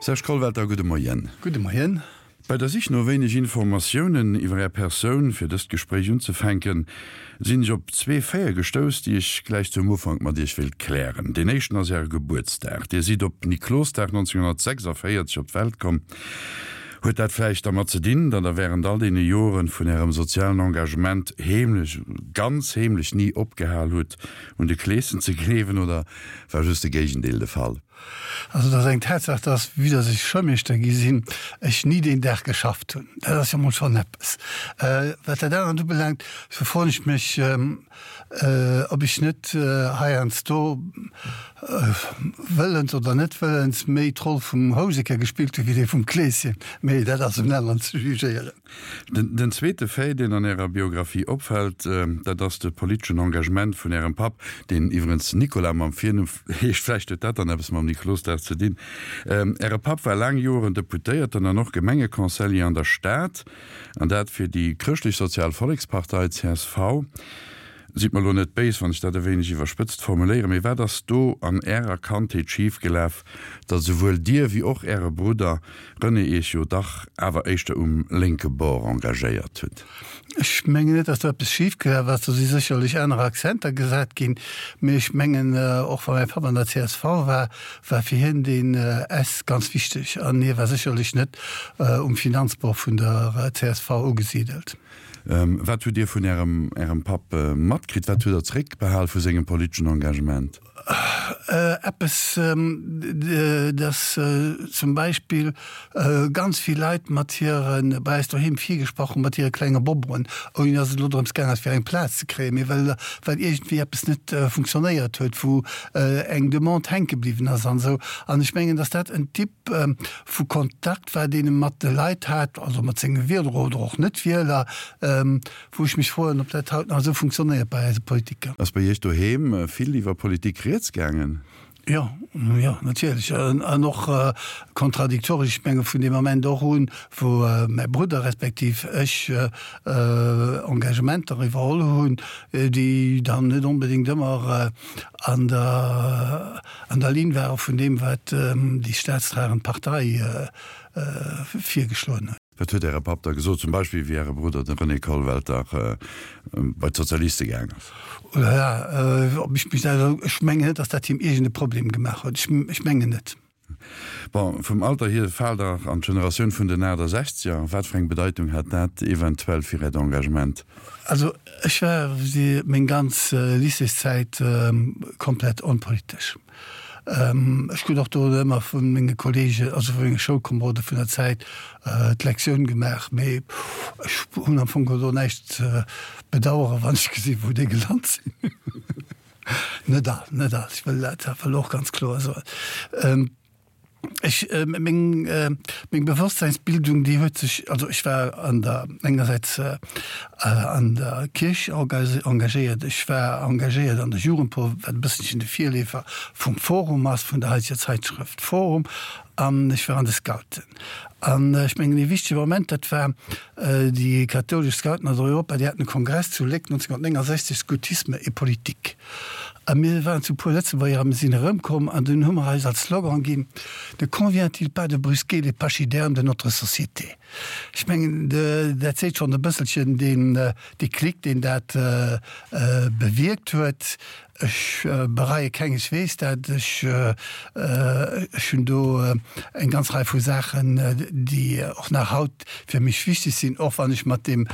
Serge Kollwelter, gudde Moien. Gudde Moien. Bei der Sich no wéineg Informatiounen iwwer Är Persoun, fir dëst Gespréich unzefänken, sinn ech op zwee Faite gestouss, déi ech gläich zum Ufank mat Iech wéilt klären. Deen éischten ass Äre Gebuertsdag. Dir sidd op Niklosdag 1946 op d'Welt komm. Huet dat vläicht dermat ze dinn, datt Der wärend all deene Joren vun Ärem sozialen Engagement heemlech, ganz heemlech ni opgehal hutt, un de Kleeschen ze gleewen, oder war just de Géigendeel de Fall? Also et ass eng Tatsaach, dass, vue dass ech Schoulmeeschter gi sinn, ech ni deen Dag geschafft hunn. Dat ass jo mol schonn eppes. Wat dat anert ubelaangt, sou froen ech mech, ob ech net heiansdo, wëllens oder net wëllens, méi d'Roll vum Houseker gespillt hu wéi déi vum Kleeschen. Mee dat ass un aneren ze jugéieren. Den zweete Fait, deen an Ärer Biographie opfält, dat ass de politeschen Engagement vun Ärem Papp, deen iwwerens Nicolas mam Virnumm heescht. Vläicht huet dat dann eppes mam Niklosdag ze dinn. Äre Papp war laang Joren Deputéierten an och Gemengeconseiller an der Stad, an dat fir déi Chrëschtlech-Sozial Vollekspartei, csv. Sidd mer elo net béis, wann ech dat e wéineg iwwerspëtzt formuléieren, mee wat ass do an Ärer Kandheet schifgelaf, datt esouwuel Dir wéi och Äre Brudder René Iech jo dach awer éischter um lénke Bord engagéiert hutt? Ech mengen net, datt do eppes schifgelaf ass. Do si sécherlech aner Akzenter gesat ginn. Mee ech mengen, och wa mäi Papp an der csv war, war fir hien deen S ganz wichteg. An hie war sécherlech net um Finanzbord vun der csv ugesidelt. Wat hutt Dir vun Ärem Ärem Papp matkritt? Wat hutt Der zeréckbehal vu sengem politeschen Engagement? Eppes, dass zum Beispill ganz vill Leit mat hire bei eis doheem virgesprach hunn, mat hire klenge Bobroen, ouni dass et elo drëms gaang ass, fir eng Plaz ze kréien, mee well well iergendwéi eppes net funktionéiert huet, wou eng Demande hänke bliwwen ass an esou. An ech mengen, dass dat en Typ vu Kontakt war, deen e mat de Leit hat, also mat senge Wieler oder och Net-Wieler, wou ech mech froen, ob dat haut nach esou funktionéiert bei eise Politiker. Ass bei Iech doheem vill iwwer Politik rieds gaangen? Jo, jo, natierlech. An och kontradiktoresch. Ech menge vun deem Ament och un, wou mäi Brudder respektiv ech Engagementer iwwerholl hunn, déi dann net onbedéngt ëmmer an der an der Linn ware vun deem, wat déi staatstragend Partei virgeschloen huet. Wat huet Äre Papp da gesot, zum Beispill wéi Äre Brudder, de René Kollwelter, bei d'Sozialiste gaang ass? Oh la la, ob ech mech dat, ech mengen net, datt dat him iergend e Problem gemaach huet. Ech mengen net. Bon, vum Alter hier faalt Der an d'Generatioun vun den 68er. Wat fir eng Bedeitung hat dat eventuell fir Äert Engagement? Also ech war meng ganz Lycéeszäit komplett onpolitesch. Ech krut och do ëmmer vu menge Kollegen, also vu menge Schoulkomerode vun der Zäit d'Lektioun gemaach, mee ech hunn am Fong geholl do näischt ze bedaueren, wann ech gesinn, wou déi gelant sinn. Net all, net all, ech wëll dat awer elo och ganz kloer soen. Ech, meng, meng Bewosstsäinsbildung, déi huet sech, also ech war an der, engersäits an der Kierch engagéiert, ech war engagéiert an der Jugendpor, wat e bësselchen de Virleefer vum Forum ass, vun der haiteger Zeitschrëft Forum, an ech war an de Scouten. An ech mengen, ee wichtege Moment, dat war déi kathoulesch Scouten aus Europa, déi haten e Kongress zu Léck 1969, Scoutisme et politique. A mir waren zu puer Lëtzebuerger a mir sinn erëmkomm an dunn hu mer eis als Slogan ginn, Ne convient-il pas de brusquer les pachydermes de notre société? Ech mengen, dat seet schonn e bësselchen deen Déclic, deen dat bewierkt huet. Ech bereie kengeswees dat. Ech hunn do eng ganz Rei vu Saachen, déi och nach haut fir mech wichteg sinn, och wann ech mat deem,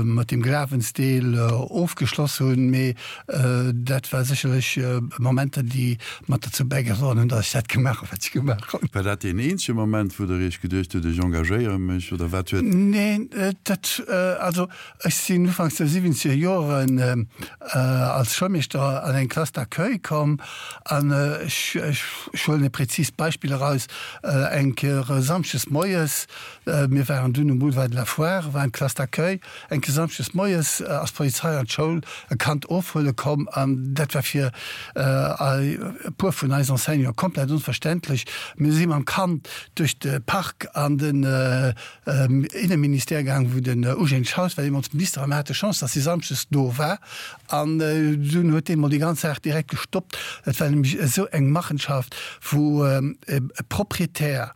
mat deem Glawensdeel ofgeschloss hunn. Mee dat war sécherlech Momenter, déi mat derzou bäigedroen hunn, datt ech dat gemaach hunn, wat ech gemaach hunn. War dat deen eenzege Moment, wou Der Iech geduecht hutt, ech engagéiere mech, oder wat huet. Neen, dat, also Ech sinn ufanks der siwwenzeger Joren als Schoulmeeschter an eng Classe d'accueil komm an ech huelen e präzist Beispill eraus, Eng Kéier samschdes moies, mir waren dunn um Boulevard de la Foire, war eng Classe d'accueil, eng Kéier samschdes moies ass d'Polizei an d'Schoul e Kand ofhuele komm an dat war fir e puer vun eis Enseignanten komplett onverständlech. Mir si mam Kand duerch de Park an den Inneministère gaang, wou den Eugène Schaus war deemools Minister, a mir hate Chance, datt hie samschdes do war. An dunn huet dee mol. déi ganz Saach direkt gestoppt. Dat war nämlech esou eng Machenschaft, wou e Proprietär,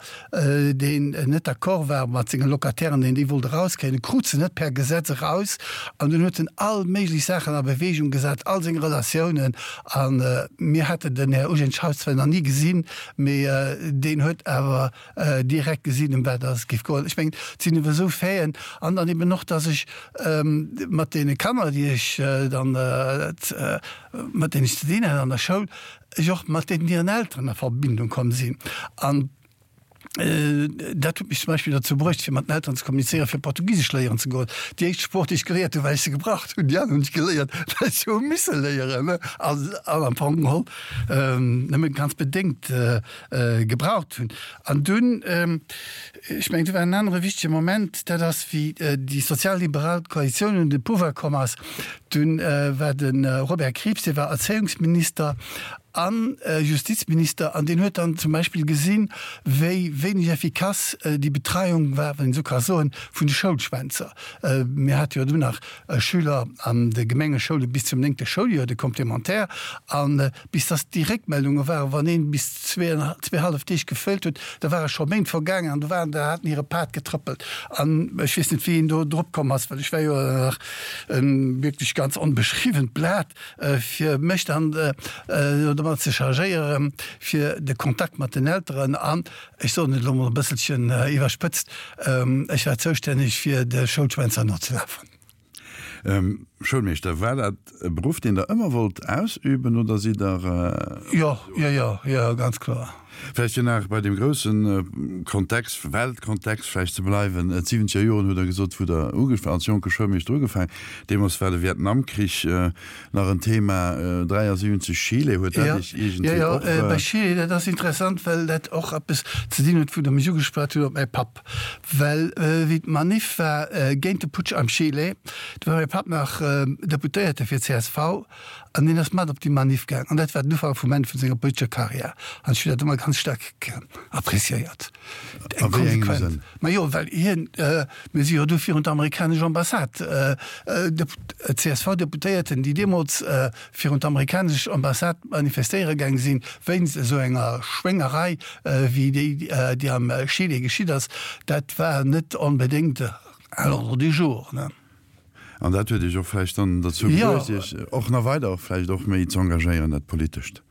deen net d'accord war mat senge Locatairen, deen déi wollt erauskréien, e krut se net per Gesetz eraus an dunn huet en all méiglech Saachen a Bewegung gesat, all seng Relatiounen. A mir haten den Här Eugène Schaus zwar nach ni gesinn, mee deen huet awer direkt gesinn, ëm wat et géif goen. Ech mengen, et sinn ewer esou Faiten an dann eben och, dass ech mat deene Kanner, déi ech dann, mat deenen ech ze dinn hat an der Schoul, ech och mat deenen hiren Elteren a Verbindung komm sinn. An dat huet mech zum Beispill dozou bruecht, fir mat den Elteren ze kommunizéieren, fir Portugisesch léieren ze goen. Déi éischt Sprooch, déi ech geléiert hunn, well ech se gebraucht hunn, déi aner hunn ech geléiert, well ech se hu misse léieren an am Fong geholl nëmme ganz bedéngt gebraucht hunn. An dunn, ech mengen, do war en anere wichtege Moment, dat ass, wéi déi sozialliberal Koalitioun un de Pouvoir komm ass, dunn war de Robert Krieps, dee war Erzéiungsminister a Justizminister, an deen huet dann zum Beispill gesinn, wéi wéineg effikass déi Betreiung war, wann een esou ka soen, vun de Schoulschwänzer. Mir hate jo dunn nach Schüler an de Gemengeschoule bis zum néngte Schouljoer, de Complémentaire, an Bis dass déi Réckmeldunge waren, wann een bis zweehallef Deeg geféilt huet, da ware scho Méint vergaangen an do waren der, haten hire Pad getrëppelt. An ech weess net, wéi een do drop komm ass, well ech war jo nach e wierklech ganz onbeschriwwent Blat, fir mech dann domat ze chargéieren, fir de Kontakt mat den Elteren an, ech soen et elo mol e bësselchen iwwerspëtzt, ech war zoustänneg fir de Schoulschwänzer nozelafen. Schoulmeeschter, war dat e Beruff, deen Der ëmmer wollt ausüben oder sidd Der. Jo, jo, jo, jo, ganz kloer. Vläicht fir nach bei deem grousse Kontext, Weltkontext vläicht ze bleiwen, D'siwwenzeger Joren hutt Der gesot, wou Der als jonke Schoulmeeschter ugefaangen. Deemools war de Vietnamkrich nach en Thema, 73 Chile, huet dat Iech iergendwéi och. Jo, jo, bei Chile, dat ass interessant, well dat och eppes ze dinn huet, wou Der mech ugeschwat hutt op mäi Papp. Well wéi d'Manif war géint de Putsch am Chile, do war mäi Papp nach Deputéierte fir csv an deen ass mat op déi Manif gaang an dat war den Ufank vum Enn vun senger politescher Karriär an ech hunn dat ëmmer ganz staark appréciéiert. A wéi engem Sënn? Majo, well hien, mir si jo du virun d'amerikanesch Ambassade, CSV-Deputéierten, déi deemools virun d'amerikanesch Ambassade manifestéiere gaang sinn, wéinst esou enger Schwéngerei wéi déi, déi am Chile geschitt ass, dat war net onbedéngt à l'ordre du jour. An dat huet Iech och vläicht dann derzou bruecht, Iech och nach weider vläicht och méi z'engagéieren, dat Politescht?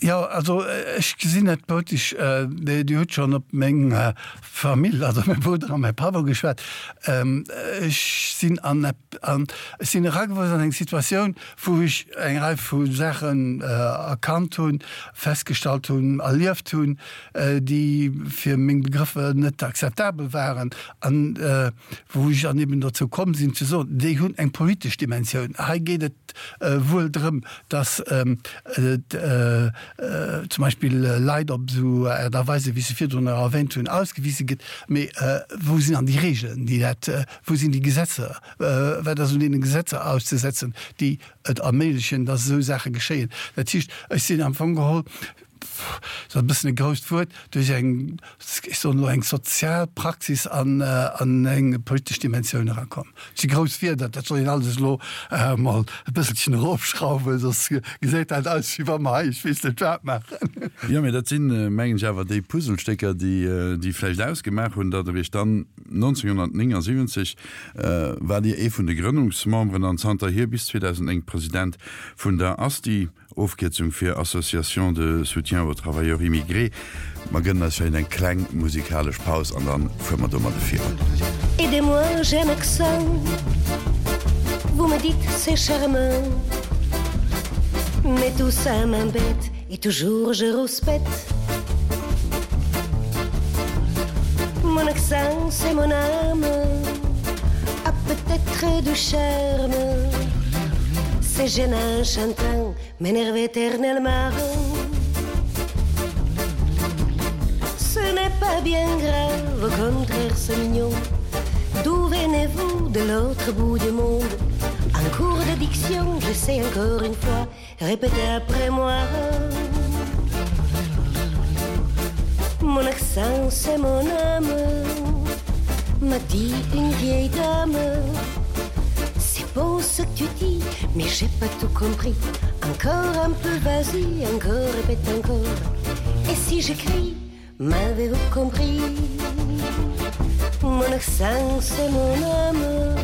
Jo, also ech gesinn net politesch, Dir hutt schonn op meng Famill, also mäi Brudder a mäi Papp ugeschwat. Ech sinn an ech sinn eragewuess an eng Situatioun, wou ech eng Rei vu Saachen erkannt hunn, festgestallt hunn, erlieft hunn, déi fir meng Begrëffer net akzeptabel waren an wou ech dann eben dozou komm sinn ze soen, déi hunn eng politesch Dimensioun. Hei geet et wuel drëm, dass zum Beispill Leit op esou Aart a Weise, wéi ech se virdrun nach erwähnt hunn, ausgewise gëtt. Mee wou sinn dann déi Regeln, déi dat, wou sinn déi Gesetzer, wat ass un deene Gesetzer auszesetzen, déi et erméiglechen, dass esou Saache geschéien? Dat heescht, ech sinn am Fong geholl, dat ass e bëssen e grousst Wuert, duerch eng, ech soen elo, eng sozial Praxis an eng politesch Dimensioun erakomm. Dat si grouss Wierder, dat soll een alles elo emol e bësselchen erofschrauwen, soss gesäit dat aus, wéi wa mer hei ech weess net wat maachen. Jo, mee dat sinn, mengen ech, awer déi Puzzlestécker, déi vläicht ausgemaach hunn, datt Der Iech dann 1979 waart Dir ee vun de Grënnungsmemberen an zanterhier bis 2009 President vun der ASTI. Ofkierzung fir Association de soutien aux travailleurs immigrés. Mer gënnen eis vläicht eng kleng musikalesch Paus an dann fuere mer domadde virun. Aidez-moi, j'ai un accent Vous me dites c'est charmant Mais tout ça m'embête Et toujours je rouspète Mon accent c'est mon âme A peut-être du charme C'est gênant chantant M'énerve éternellement Ce n'est pas bien grave Au contraire c'est mignon D'où venez-vous de l'autre bout du monde En cours de diction, j'essaie encore une fois Répétez après moi Mon accent c'est mon âme M'a dit une vieille dame C'est beau ce que tu dis Mais j'ai pas tout compris. Encore un peu, vas-y, encore, répète encore. Et si je crie, m'avez-vous compris? Mon accent, c'est mon âme,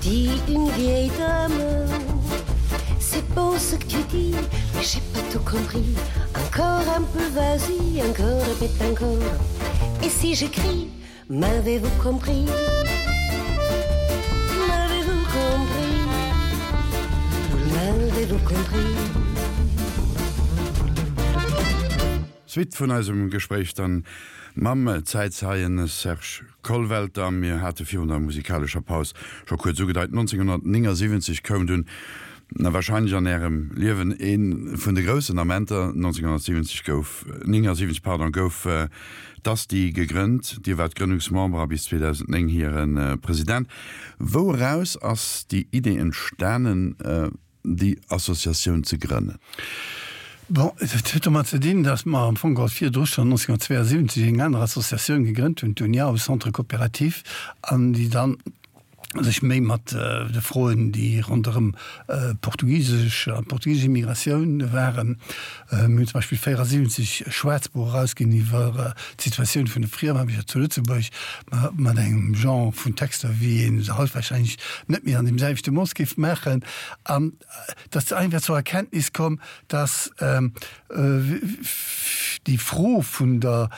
dit une vieille dame. C'est beau ce que tu dis, mais j'ai pas tout compris. Encore un peu, vas-y, encore, répète encore. Et si je crie, m'avez-vous compris? M'avez-vous compris? M'avez-vous compris? Suite vun eisem Gespréich dann mam Zäitzeien Serge Kollwelter. Mir hate virun der musikalescher Paus scho kuerz ugedeit, 1979 koum dunn, na wahrscheinlech an Ärem Liewen ee vun de groussen Amenter, 1970 gouf, 79 pardon, gouf d'ASTI gegrënnt. Dir waart Grënnungsmember a bis 2009 hire President. Wou eraus ass déi Idee entstanen, déi Associatioun ze grënnen? Bon, et huet domat ze dinn, datt mer am Fong geholl virdru schonn 1972 eng aner Associatioun gegrënnt hunn, d'Uniao Centre Coopératif, an déi dann sech méi mat de Froen, déi ronderëm portugisesch an d'portugisesch Immigratioun waren. Mir hunn zum Beispill 74 e Schwaarzbuch erausginn iwwer d'Situatioun vun de Friemaarbechter zu Lëtzebuerg, mat engem Genre vun Texter, wéi ee se haut warscheinlech net méi an deem selwechte Mooss géif maachen. An et ass einfach zur Erkenntnis komm, dass déi Fro vun der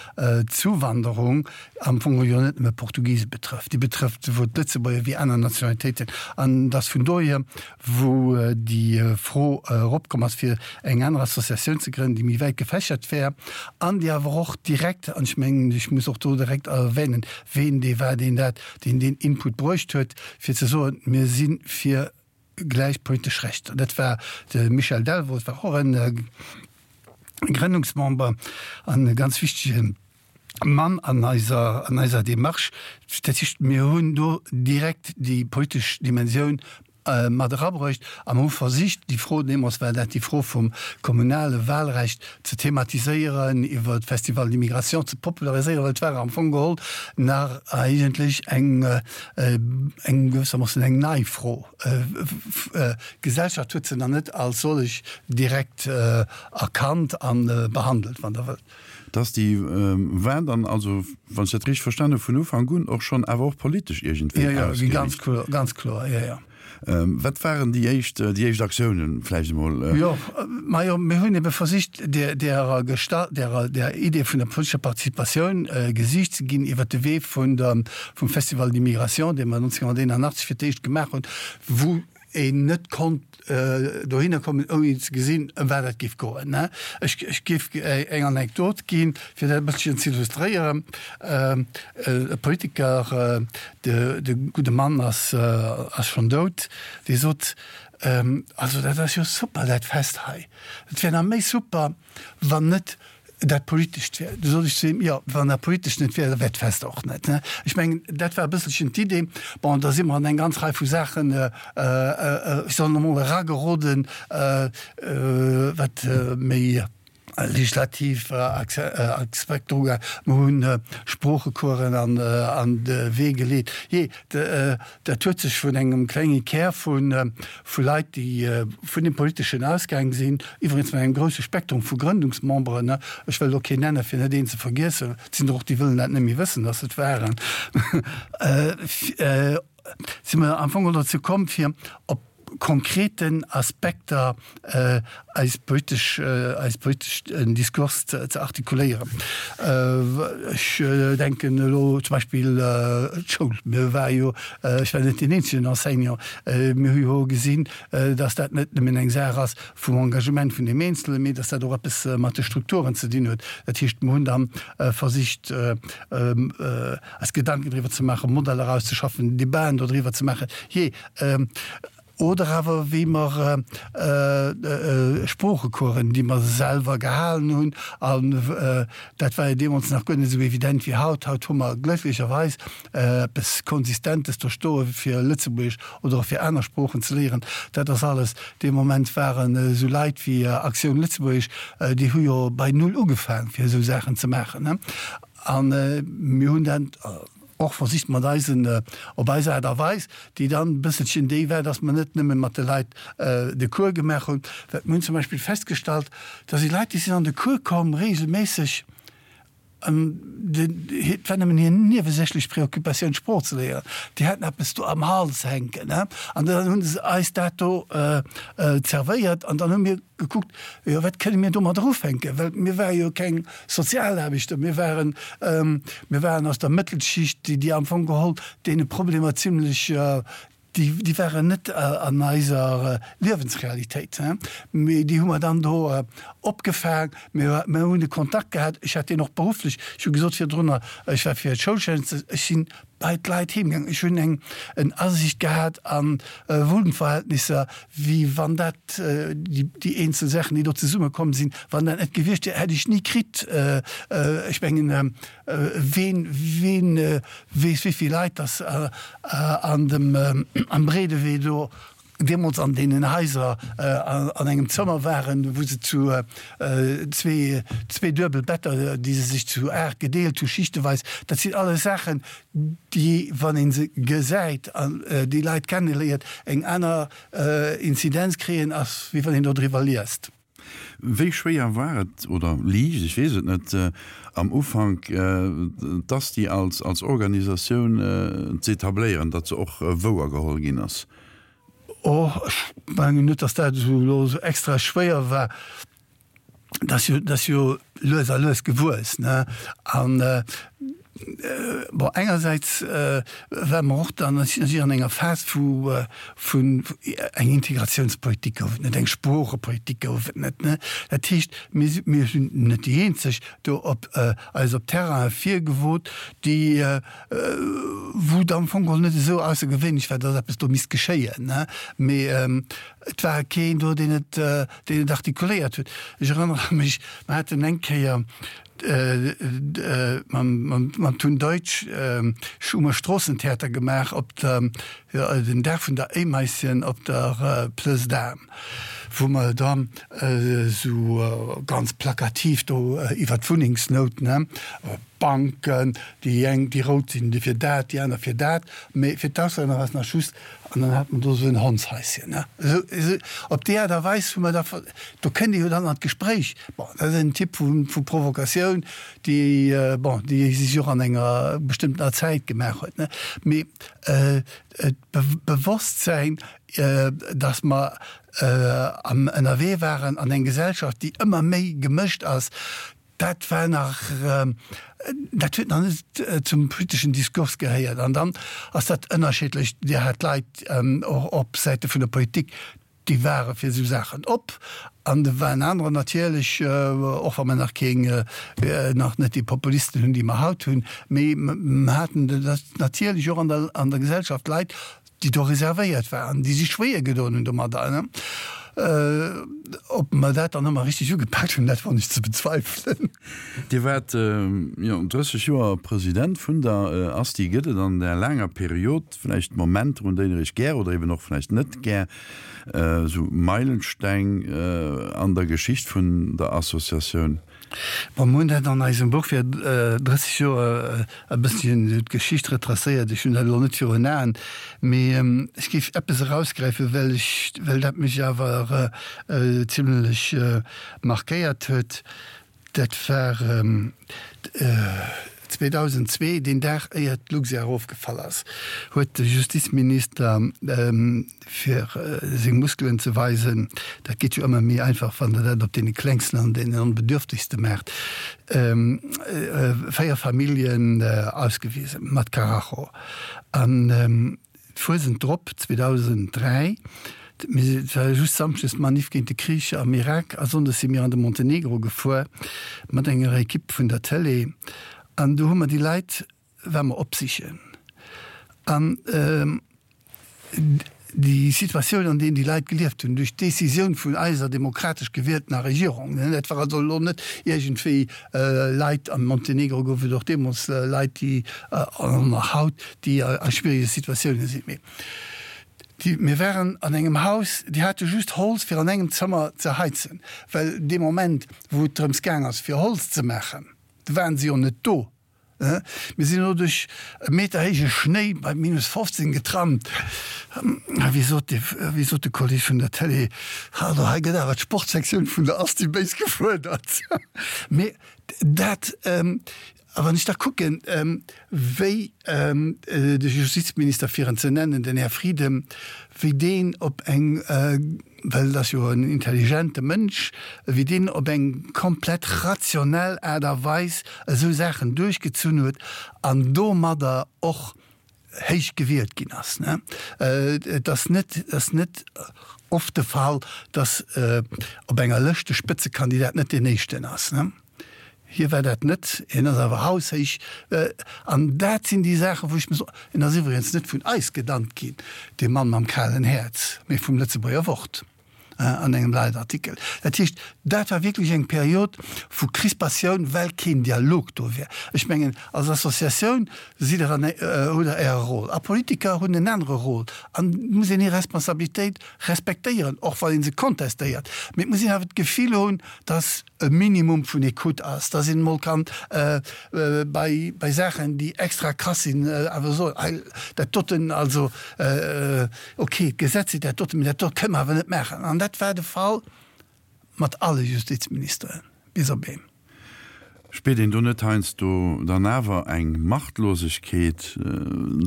Zuwanderung am Fong jo net nëmme Portugise betrëfft, déi betrëfft souwuel d'Lëtzebuerger wéi aner Nationalitéiten, an dass vun dohier, wou déi Fro eropkomm ass, fir eng aner Associatioun ze grënnen, déi méi wäit gefächert wär an déi awer och direkt, an ech mengen, ech muss och do direkt erwänen, ween dee war, deen dat, deen deen Input bruecht huet, fir ze soen, mir si fir gläich politesch Rechter. Dat war de Michel Delvaux, dat war och e Grënnungsmember an e ganz wichtege Mann an eiser, an eiser Démarche. Dat heescht, mir hunn do direkt déi politesch Dimensioun mat erabruecht a mer hu versicht, déi Fro, deemools war dat déi Fro vum kommunale Wahlrecht, ze thematiséieren, iwwer d'Festival d'immigration ze populariséieren, well et war am Fong geholl nach eigentlech eng, eng gewëssermoossen eng nei Fro. D'Gesellschaft huet se nach net als sollech direkt erkannt a behandelt, wann Der wëllt. Dass déi war dann also, wann ech dat richteg verstanen hu, vun Ufank un och schonn awer och politesch iergendwéi ausgeriicht. Jo, jo, ganz kloer, ganz kloer, jo, jo. Wat waren déi éischt, déi éischt Aktiounen vläicht emol? Jo, majo, mir hunn ebe versicht, där, därer Gestalt, därer, där Idee vun der politescher Participatioun Gesiicht ze ginn iwwert de Wee vun der, vum Festival d'immigration, dee mer 1981 fir d'éischt gemaach hunn, wou een net konnt dohinner kommen, ouni ze gesinn, ëm wat et géif goen. Ech, ech géif eng Anekdot ginn, fir dat e bësselchen ze illustréieren. E Politiker, de, de gudde Mann ass, ass schonn dout, dee sot, Also dat ass jo super, dat Fest hei. Et wär nach méi super, wann net dat Politescht wär. Du sot ech zu him, Jo, wann dat Politescht net wär, da wär d'Fest och net. Ech mengen, dat war e bësselchen d'Idee. Bon, da si mer an eng ganz Rei vu Saachen, ech soen emol, erageroden, wat méi legislativ Aspekter ugaang. Mer hunn Sproochecoursen an de Wee geleet. Jee, dat huet sech vun engem klenge Kär vu vu Leit, déi vun dem Politeschen ausgaang sinn, iwwregens mat engem grousse Spektrum vu Grëndungsmemberen, ech wëll elo keen nennen, fir net een ze vergiessen, et sinn der och, déi wëllen dat net méi wëssen, datt et waren, si mer am Fong dozou komm, fir op konkreten Aspekter eis politesch, eis politeschen Diskurs ze artikuléieren. Ech denken elo zum Beispill d'Schoul. Mir ware jo, ech war net deen eenzegen Enseignant, mir hu jo gesinn, dass dat net nëmmen eng Saach ass vum Engagement vun deem Eenzelen, mee dass dat och eppes mat de Strukturen ze dinn huet. Dat heescht, mir hunn da versicht, eis Gedanken driwwer ze maachen, Modeller auszeschaffen, Debaten dodriwwer ze maachen. Jee, Oder awer wéi mer Sproochecoursen, déi mer selwer gehalen hunn, an dat war jo deemools nach guer net esou evident wéi haut. Haut hu mer glécklecherweis eppes Konsistentes do stoe fir Lëtzebuergesch oder och fir aner Sproochen ze léieren. Dat ass alles. Dee Moment waren esou Leit wéi Actioun Lëtzebuergesch, déi hu jo bei Null ugefaang fir esou Saachen ze maachen. A mir hunn dat. Och versicht mat eisen, op eis Aart a Weis, déi dann e bësselchen déi war, dass mer net nëmme mat de Leit de Cours gemaach hunn. Well mir hunn zum Beispill festgestallt, da si Leit, déi sinn an de Cours komm regelméisseg, an et war nëmmen hir niewesächlech Préoccupatioun d'Sprooch ze léieren. Déi haten eppes do am Hals hänken, an dann hu se eis dat do zerwéiert an dann hu mir gekuckt, jo wat kënne mir domadder ufänken, well mir ware jo keng Sozialaarbechter, mir waren, mir waren aus der Mëttelschicht, déi déi am Fong geholl deene Problemer zimlech, déi déi waren net an eiser Liewensrealitéit, mee déi hu mer dann do opgefaang. Mir mir hunn de Kontakt gehat, ech hat deen och berufflech, ech hu gesot virdrunner, ech war fir d'Schoulschäffen, ech sinn bei d'Leit heem gaangen, ech hunn eng en Asiicht gehat a Wunnverhältnisser, wéi wann dat déi eenzel Saachen, déi do zesummekomm sinn, wann dat net gewiescht wier, hätt ech ni kritt. Ech mengen, ween, ween weess, wéi vill Leit dass an dem, am Breedewee do deemools an deenen Haiser an engem Zëmmer waren, wou se zu zwee, zwee duebel Better, déi se sech zu 8 gedeelt hu, schichteweis. Dat sinn alles Saachen, déi, wann ee se gesäit an déi Leit kenneléiert, eng aner Inzidenz kréien, ass wéi wann een dodriwwer liest. Wéi schwéier war et, oder liicht, ech weess et net, am Ufank d'ASTI als als Organisatioun z'etabléieren, datt se och wouer geholl ginn ass? Oh, ech mengen net, datt dat esou elo esou extra schwéier war. Dat ass jo, dat ass jo lues a lues gewuess, ne? An bon, engersäits ware mer och dann natierlech an enger Phas, wou vun eng Integratiounspolitik gouf et net, eng Sproochepolitik gouf et net, ne? Dat heescht, mir si, mir sinn net déi eenzeg do op eis op Terraine virgewot, déi wou et am Fong geholl net esou aussergewéinlech war, datt eppes do misst geschéien, ne? Mee et war keen do, deen et, deen et artikuléiert huet. Ech erënnere mech, mer haten eng Kéier mam Tun Deutsch hu mer Stroossentheater gemaach op der, den Dag vun der Éimaischen op der Plëss d'Armes, wou mer dann esou ganz plakativ do iwwer d'Wunnengsnout, ne, Banken, déi eng, déi rout sinn fir dat, déi aner fir dat, mee fir d'Auslänner war es nach just, an dann hat mer do esou en Hondshaischen, ne. Esou, esou op déi Aart a Weis hu mer da, do kënnt ee jo dann an d'Gespréich. Bon, dat ass en Typ vu, vu Provokatioun, déi, bon, déi sech och an enger bestëmmtener Zäit gemaach huet, ne. Mee d'Bewosstsäin, dass mer am ënnerwee waren an eng Gesellschaft, déi ëmmer méi gemëscht ass, dat war nach, dat huet nach net zum politeschen Diskurs gehéiert. An dann ass dat ënnerschiddlech. Dir hat Leit och op Säite vun der Politik, déi ware fir esou Saachen op an do waren anerer natierlech, och wa mer nach keng, nach net déi Populisten hunn, déi mer haut hunn, mee mer haten natierlech och an der, an der Gesellschaft Leit, déi do reservéiert waren, déi sech schwéier gedoen hunn domadder. Ob mer dat dann ëmmer richteg ugepaakt hunn, dat won ech ze bezweifelen. Dir waart jo 30 Joer President vun der ASTI. Gëtt et an där laanger Period vläicht Momenter, un déi Der Iech gär oder eben och vläicht net gär, esou Meilensteng an der Geschicht vun der Associatioun? Bon, mir hunn dat an eisem Buch fir 30 Joer e bësschen d'Geschicht retracéiert. Ech hunn dat elo net virun Aen, mee ech géif eppes erausgräifen, well ech, well dat mech awer zimlech markéiert huet. Dat war 2002, deen Dag éier d'Luxair erofgefall ass, huet de Justizminister, fir seng Muskelen ze weisen, dat geet jo ëmmer méi einfach, wann Der dat op deene Klengsten an deenen Onbedürftegste maacht, 4 Familljen ausgewisen mat Karacho. An d'Fuesent drop, 2003, et war just samschdes d'Manif géint de Krich am Irak a sonndes si mir an de Montenegro gefuer mat enger Ekipp vun der Tëlee an do hu mer déi Leit, war mer opsichen an déi Situatioun, an deem déi Leit gelieft hunn, duerch d'Décisioun vun eiser demokratesch gewieltener Regierung, dat war also elo net iergendwéi Leit, am Montenegro gouf et och deemools Leit, déi, an nach haut, déi a schwierige Situatiounen sinn, mee déi, mir waren an engem Haus, déi hate just Holz fir an engem Zëmmer ze heizen, well dee Moment, wou et drëms gaang ass fir Holz ze maachen, do waren se jo net do. Mir sinn elo duerch e Meter héije Schnéi bei minus 15 getrampt. A wéi sot de, wéi sot de Kolleg vun der Télé, Also hei gëtt awer d'Sportsektioun vun der Asti béis gefuerdert. Mee dat, a wann ech da kucken, wéi de Justizminister, fir en ze nennen, den Här Frieden, wéi deen op eng, well et ass jo en intelligente Mënsch, wéi deen op eng komplett rationell Aart a Weis esou Saachen duerchgezunn huet an domadder och héich gewielt ginn ass. Et ass net, et ass net oft de Fall, datt op enger Lëscht de Spëtzekandidat net deen éischten ass. Hie war dat net, hien ass awer haushéich. An dat sinn déi Saachen, wou ech mir soen, en ass iwwregens net vun eis genannt ginn, dee Mann mam kalen Häerz, mee vum Lëtzebuerger Wort an engem Leitartikel. Dat heescht, dat war wierklech eng Period vu Crispatioun, well keen Dialog do war. Ech mengen, als Associatioun sidd Der an, hutt Der Äre Rôle a Politiker hunn en anere Rôle an et muss een hir Responsabilitéit respektéieren, och wann ee se kontestéiert. Mee et muss een awer d'Gefill hunn, dass e Minimum vun Ecoute ass, dass een emol kann bei, bei Saachen, déi extra krass sinn, awer soen, hei, dat doten, also okay, d'Gesetz seet dat doten, mee dat do kënne mer awer net maachen. An dat war de Fall mat alle Justizministeren, bis op een. Spiert een do net heiansdo dann awer eng Machtlosegkeet?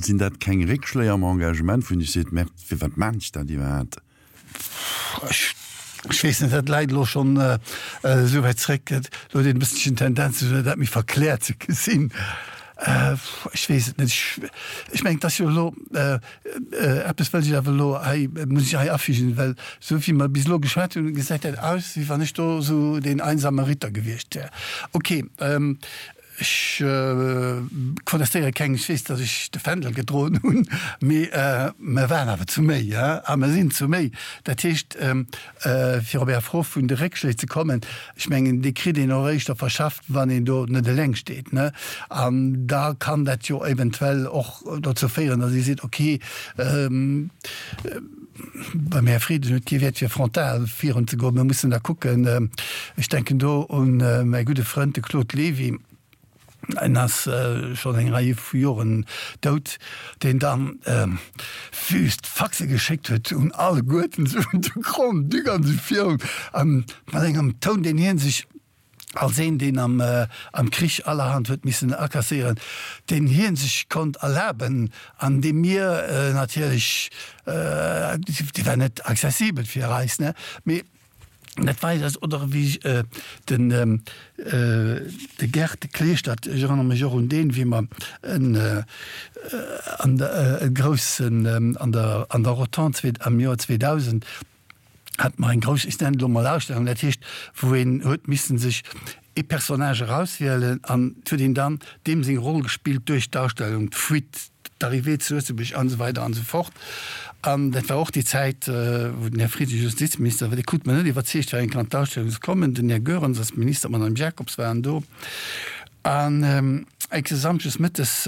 Sinn dat keng Réckschléi am Engagement, wou een sech seet, Merde, firwat maan ech dat iwwerhaapt? Ech weess net, dat läit elo schonn esou wäit zréck, elo huet een e bësselchen d'Tendenz, dat méi verkläert ze gesinn. Ech weess et net. Ech mengen, et ass jo elo, eppes wëll ech awer elo hei, muss ech hei afügen, well esou wéi mer bis elo geschwat hunn, gesäit dat aus, wéi wann ech do esou deen einsame Ritter gewiescht wär. Okay. Ech kontestéiere keng, ech weess, datt ech de Fändel gedroen hunn, mee mer waren awer zu méi a mer sinn zu méi. Dat heescht, fir op Är Fro vun de Réckschléi ze kommen, ech mengen, déi kritt een och éischter verschafft, wann een do net eleng steet. An da kann dat jo eventuell och dozou féieren, datt ee seet, okay, Beim Här Frieden huet kee Wäert fir frontal virun ze goen. Mir mussen da kucken, ech denken do un mäi gudde Frënd, de Claude Levy, en ass schonn eng Rei vu Joren dout, deen dann wüst Faxe geschéckt huet un alleguerten, esou un de Grand-Duc an esou virun, a mat engem Toun, deen hie sech als een, deen am am Krich allerhand huet missen akasséieren, deen hie sech konnt erlaben an dee mir natierlech, dee war net accessibel fir eis, ne, mee dat war eis, oder wéi den de Gerd Kleeschtert, ech erënnere mech och un deen, wéi mer en an der e groussen an der an der Rotonde am Joer 2000, hat mer eng grouss, ech nennen et elo mol Ausstellung, dat heescht wou een huet missen sech ee Personnage erauswielen an et huet een dann deem seng Roll gespillt duerch d'Ausstellung, d'Fuite, d'Arrivée zu Lëtzebuerg an esou weider an esou fort. An dat war och déi Zäit wou den Här Frieden Justizminister war, dee krut mer net iwwerzeegt fir eng Kéier an d'Ausstellung ze kommen, den Här Goerens als Minister, d'Madame Jacobs waren do. An enke Samschdes mëttes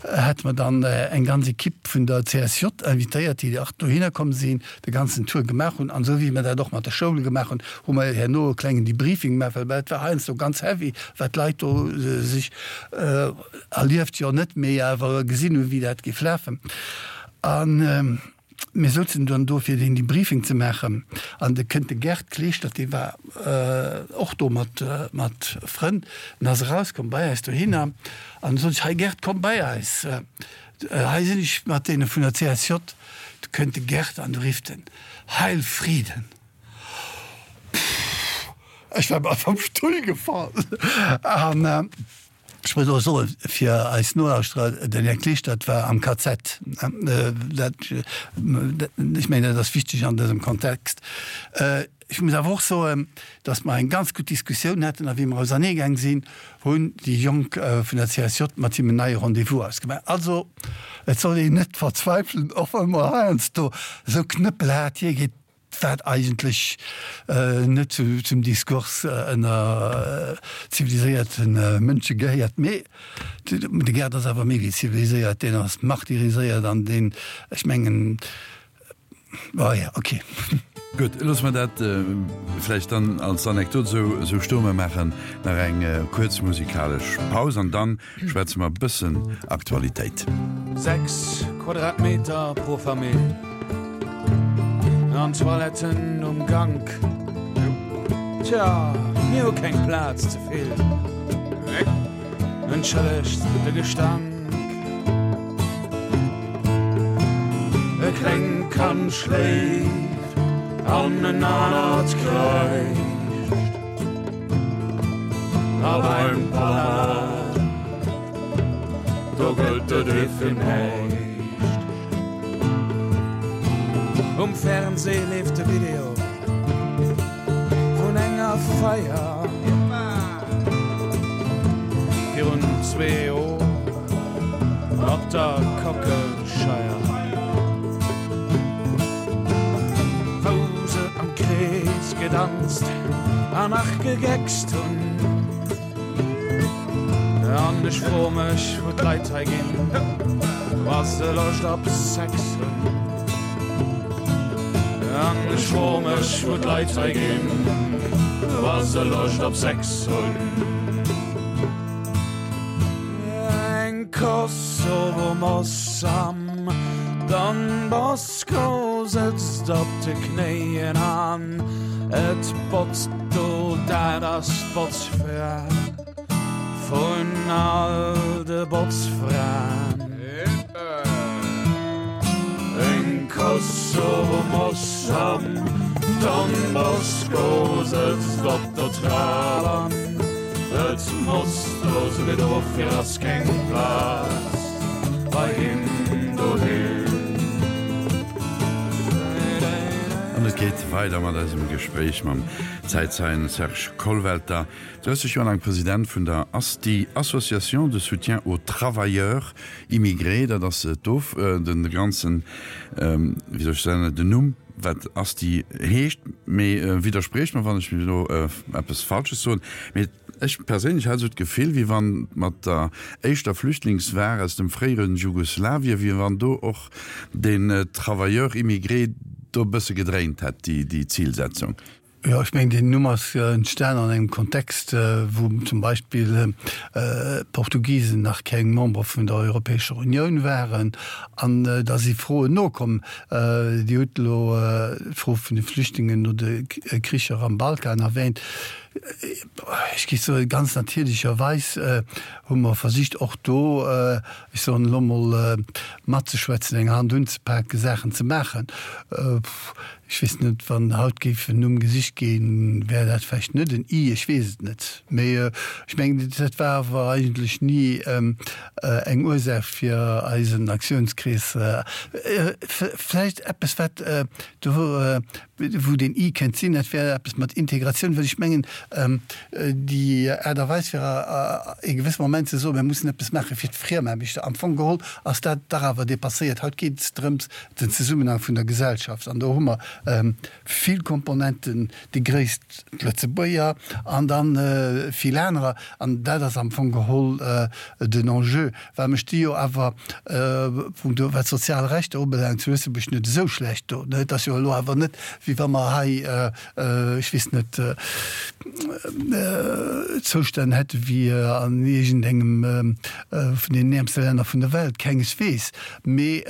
hate mer dann eng ganz Equipe vun der CSJ invitéiert, déi och dohinner komm sinn, de ganzen Tour gemaach hunn. An esou wéi mer dat och mat de Schoule gemaach hunn, hu mer herno e klengen Debriefing gemaach, well et war heiansdo ganz heavy, wat d'Leit do sech erlieft, jo net, mee awer gesinn hunn, wéi dat géif lafen. An Mir souzen dann do fir deen Debriefing ze maachen an de kënnt de Gerd Kleeschtert, dee war och do mat mat Frënn, en ass erauskomm bei eis dohinner an du sot ech, hei Gerd, komm bei eis, hei sinn ech mat deene vun der CSJ. Du kënnt de Gerd an du rifft en, Heil Frieden! Pff, ech war bal vum Stull gefall an. Ech muss och soen, fir eis Nolauschterer, den Här Kleschtert war am KZ. Dat, ech mengen, dat ass wichteg an dësem Kontext. Ech muss awer och soen, datt mer eng ganz gutt Diskussioun haten a wéi mer auserneegaang sinn, hunn déi Jonk vun der CSJ mat him en neie Rendez-vous ausgemaach. Also, et soll een net verzweifelen, och wa mer heiansdo esou knëppelhaart hiergeet. Wat eigentlech net zum Diskurs ënner ziviliséierte Mënsche gehéiert. Mee de Gerd ass awer méi wéi ziviliséiert, deen ass martyriséiert an deen, ech mengen, oh jo, okay. Gutt, loosse mer dat vläicht dann als Anekdot esou stoen. Mer maachen nach eng kuerz musikalesch Paus an dann schwätze mer e bëssen Aktualitéit. 6 Quadratmeter pro Famill an Toiletten um Gank. Tja, mir hu keng Plaz ze vill. Entschëllegt de Gestank. E klengt Kand schléift an en anert kräischt. A beim Papa, do gëllt et ee fir näischt. Um Fernseh leeft de Video vun enger Feier. Virun zwee Joer op der Kockelscheier, wou se am Krees gedanzt an nach gegeckst hunn. An ech fro mech, wou d'Leit hei ginn, wa se Loscht op Sex hunn. An ech fro mech, wou d'Leit hei ginn, wa se Loscht op Sex hunn. Eng Kosovo-Moss am Don Bosco sëtzt op de Knéien an et botzt do, dat ass d'Botzfra. Vun all de Botzfraen. Eng Kosovo-Moss am Don Bosco sëtzt op der Trap an et motzt do sou wéi dofir ass keng Plaz bei him doheem. An et geet weider mat eisem Gespréich mam Zäitzeien Serge Kollwelter. 30 Joer laang President vun der ASTI, Association de soutien aux travailleurs immigrés, dat ass d'Of, de ganzen, wéi soll ech soen, den Numm, wat ASTI heescht. Mee widderspriecht mer, wann ech elo eppes Falsches soen, mee ech perséinlech hat esou d'Gefill, wéi wann mat der éischter Flüchtlingswar aus dem fréiere Jugoslawien, wéi wann do och den Travailleur immigré do e bësse gedréint hätt, déi Zilsetzung. Jo, ech mengen, deen Numm ass entstan an engem Kontext, wou zum Beispill d'Portugisen nach keng Member vun der Europäescher Unioun waren. An da si Froen nokomm. Dir hutt elo d'Fro vun de Flüchtlingen no de Kricher am Balkan erwähnt. Ech géif soen, ganz natierlecherweis hu mer versicht, och do, ech soen elo emol, matzeschwätzen, eng Hand unzepaken, Saachen ze maachen. Ech weess net, wann haut géif en Numm gesicht ginn, wär dat vläicht net en I, ech weess et net. Mee ech mengen, dat war awer eigentlech ni eng Ursaach fir eisen Aktiounskrees. Vläicht eppes, wat do, wou deen I kéint sinn, dat wär eppes mat Integratioun, well ech mengen, déi Aart a Weis fir e gewësse Moment ze soen, mir mussen eppes maache fir d'Friemaarbechter, am Fong geholl ass dat dach awer dépasséiert. Haut geet et drëms, den Zesummenhang vun der Gesellschaft, an do hu mer vill Komponenten, déi gréisst d'Lëtzebuerger an da vill anerer, an dat ass am Fong geholl den Enjeu, well mer sti jo awer punkto wat d'sozial Rechter ubelaangt zu Lëtzebuerg net esou schlecht do. Et ass jo elo awer net, wéi wa mer hei, ech weess net, Zoustänn hätte wéi an iergendengem vun deenen äermste Länner vun der Welt, kengeswees. Mee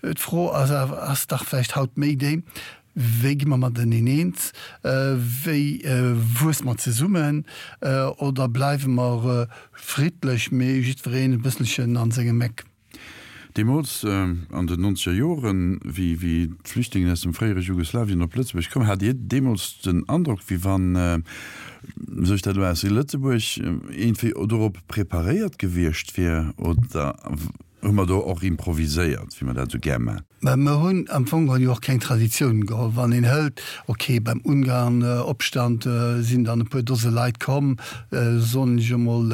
d'Fro ass awer, ass dach vläicht haut méi déi, Wéi gi mer mateneen eens? Wéi wuesse mer zesummen? Oder bleiwe mer friddlech, mee jiddwereen e bësselchen an sengem Eck? Deemools, an den nonzeger Joren, wéi d'Flüchtlingen aus dem fréiere Jugoslawien op Lëtzebuerg koumen, hat Dir deemools den Androck, wéi wann sech dat elo aus Lëtzebuerg iergendwéi dorop preparéiert gewiescht wier? Oder Hu mer do och improviséiert, wéi mer dat esou gär man? Mä mer hunn am Fong geholl jo och keng Traditioun geholl. Wann een hëlt, okay, beim Ungarn-Opstand sinn dann e puer Dose Leit komm, soen ech emol,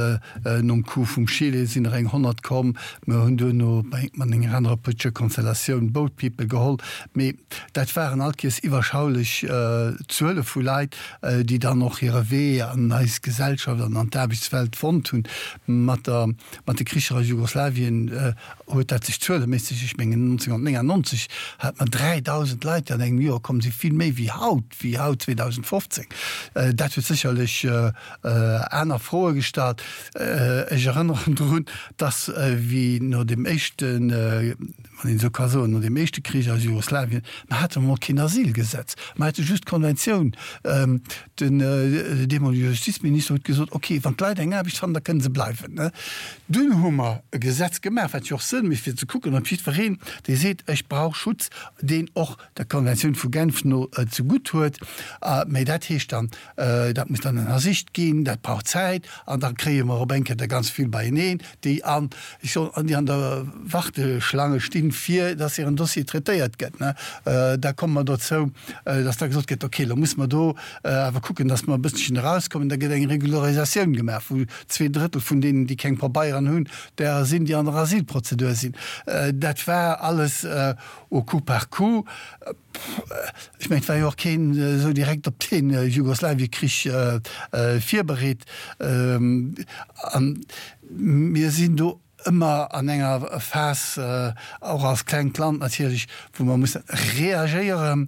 nom Coup vum Chile sinn der eng 100 komm. Mer hunn duerno mat enger anerer politescher Konstellatioun Boat People geholl. Mee dat waren all Kees iwwerschaulech Zuele vu Leit, déi dann och hire Wee an eis Gesellschaft an an d'Aarbechtswelt fonnt hunn. Mat der Mat de Kricher a Jugoslawien huet dat sech zueleméisseg, ech mengen 1999. 1990 hat mer 3.000 Leit, déi an engem Joer komm sinn, vill méi wéi haut, wéi haut 2015. Dat huet sécherlech aner Froe gestallt. Ech erënneren drun, dass wéi no deem éischten, wann een esou ka soen, no deem éischte Krich aus Jugoslawien, mer hate mol keen Asylgesetz, mer hate just d'Konventioun. Den deemolege Justizminister huet gesot, ok, wann d'Leit eng Aarbecht fannen, da kënne se bleiwen. Dunn hu mer e Gesetz gemaach, wat jo och Sënn mécht, fir ze kucken, ob jiddwereen, dee seet, ech brauch Schutz, deen och der Konventioun vu Genf no zegutt huet. Mä dat heescht dann, dat muss dann ënnersicht ginn, dat brauch Zäit an da kréie mer op eng Kéier der ganz vill beieneen, déi an, ech soen, déi an der Warteschlange stinn, fir dass hiren Dossier traitéiert gëtt. Da komme mer dozou, dass da gesot gëtt, okay, elo musse mer do awer kucken, dass mer e bësselchen erauskommen. Da gëtt eng Regularisatioun gemaach, wou Zweedrëttel vun deenen, déi keng Pabeieren hunn, derer sinn, déi an der Asylprozedur sinn. Dat war alles au coup par coup. Ech mengen, et war jo och keen esou direkt op dee Jugoslawiekrich virbereet. A mir sinn do ëmmer an enger Phas, och als klengt Land natierlech, wou mer musse reagéieren,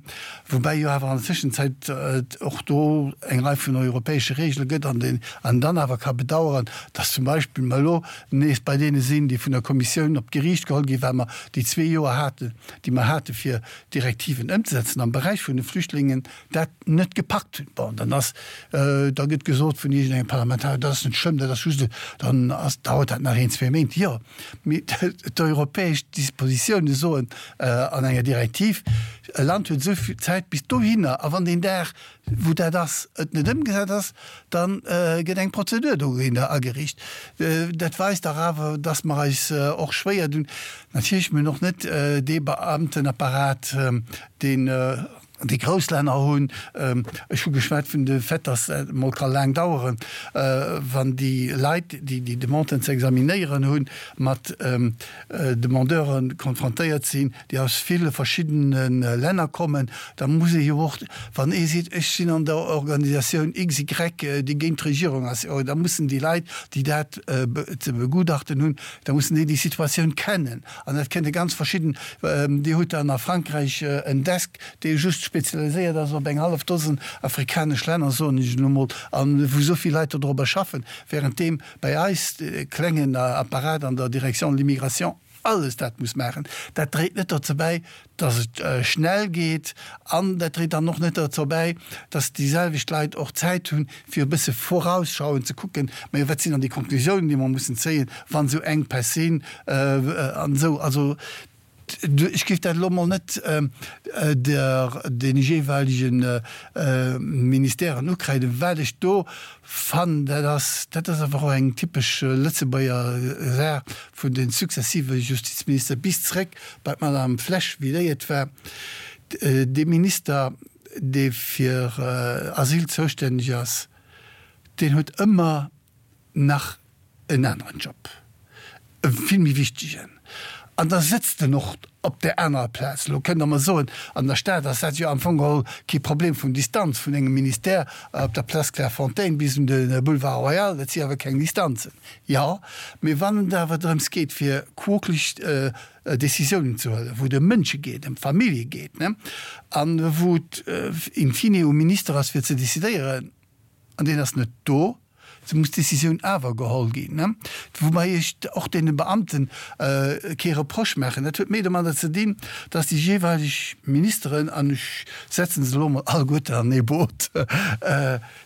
woubäi jo awer an der Tëschenzäit et och do eng Rei vun europäesche Regele gëtt an deen een dann awer ka bedauern, dass zum Beispill mer elo nees bei deene sinn, déi vun der Kommissioun op d'Geriicht geholl ginn, well mer déi zwee Joer haten, déi mer hate fir Direktiven ëmzesetzen am Beräich vun de Flüchtlingen, dat net gepackt hunn. Bon, dann ass, da gëtt gesot vun iergendengem Parlamentarier, dat ass net schlëmm, dat ass just e, dann ass, dauert dat nach een, zwee Méint. Jo, mee d'europäesch Dispositioune soen an enger Direktiv, e Land huet esou vill Zäit bis dohinner, a wann deen Dag, wou dat ass, et net ëmgesat ass, da gëtt eng Prozedur dogéinter ageriicht. Dat weist dach awer, dass mer eis och schwéier dun. Natierlech, mir hunn och net dee Beamtenapparat, deen déi grouss Länner hunn. Ech hu geschwat vun de Fait, dass et emol ka laang daueren, wann déi Leit, déi déi Demanden ze examinéieren hunn, mat Demandeure konfrontéiert sinn, déi aus ville verschiddene Länner kommen. Da muss ee jo och, wann ee seet, ech sinn an der Organisatioun XY, déi géint d'Regierung ass, jo da mussen déi Leit, déi dat ze begutachten hunn, da mussen déi déi Situatioun kennen. An dat kënne ganz verschidden, Dir hutt dann a Frankräich en Desk, dee just spezialiséiert ass op eng hallef Dosen afrikanesch Länner, soen ech elo mol, a wou esou vill Leit dodrobber schaffen, währenddeem bei eis de klengen Apparat an der Direction de l'immigration alles dat muss maachen. Dat dréit net dozou bäi, dass et schnell geet an dat dréit dann och net dozou bäi, dass déi selwecht Leit och Zäit hunn, fir e bësse vorausschauend ze kucken, majo wat sinn dann déi Konklusiounen, déi mer mussen zéien, wann esou Enkpäss sinn an esou. Also ech géif dat elo emol net der deene jeeweilege Ministèren ukräiden. Wat ech do fannen, dat ass, dat ass awer och eng typesch Lëtzebuerger Saach vun de successive Justizminister bis zréck bei d'Madame Flesch, wéi déi et war, dee Minister, dee fir Asyl zoustänneg ass, deen huet ëmmer nach en aneren Job, e vill méi wichtegen, an da sëtzt en och op där anerer Plaz. Elo kënnt Der mer soen, an der Stad ass dat jo am Fong geholl kee Problem vun Distanz vun engem Ministère op der Place Clairefontaine bis un de Boulevard Royal, dat si awer keng Distanzen. Jo, mee wann et awer drëms geet, fir quokelech Décisiounen ze huelen, wou et ëm Mënsche geet, ëm Famillje geet, an wou et in fine um Minister ass, fir ze décidéieren, an deen ass net do, sou muss d'Décisioun awer geholl ginn. Woubäi ech och deene Beamten kee Reproche maachen. Dat huet méi domadder ze dinn, dass déi jeeweileg Ministeren, an ech setzen se elo emol alleguerten an ee Boot,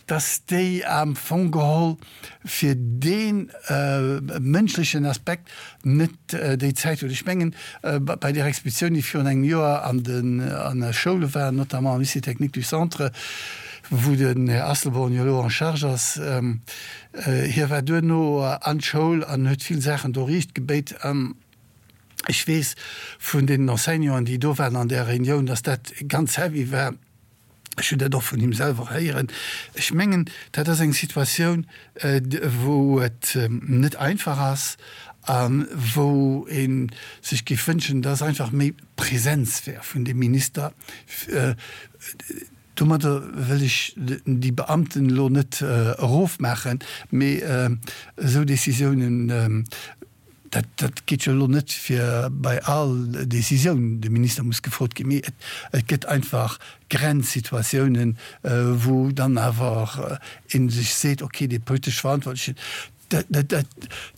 dass déi am Fong geholl fir dee mënschlechen Aspekt net déi Zäit huet. Ech mengen, bei där Expeditioun, déi virun engem Joer an de Schoule war, notamment am Lycée technique du Centre, wou den Här Asselborn jo elo en charge ass, hie war duerno an d'Schoul an huet vill Saachen do riicht gebéit. An ech weess vun deenen Enseignanten, déi do waren an där Reunioun, dass dat ganz heavy war. Ech hunn dat och vun him selwer héieren. Ech mengen, dat ass eng Situatioun, wou et net einfach ass a wou ee sech géif wënschen, dass einfach méi Präsenz wär vun deem Minister. Domadder wëll ech déi Beamten elo net erofmaachen, mee esou Décisiounen. Dat, dat geet jo elo net fir bei all Décisioun de Minister muss gefrot ginn, mee et, et gëtt einfach Grenzsituatiounen, wou dann awer ee sech seet, okay, dee politesch Verantwortlechen, dat, dat, dat,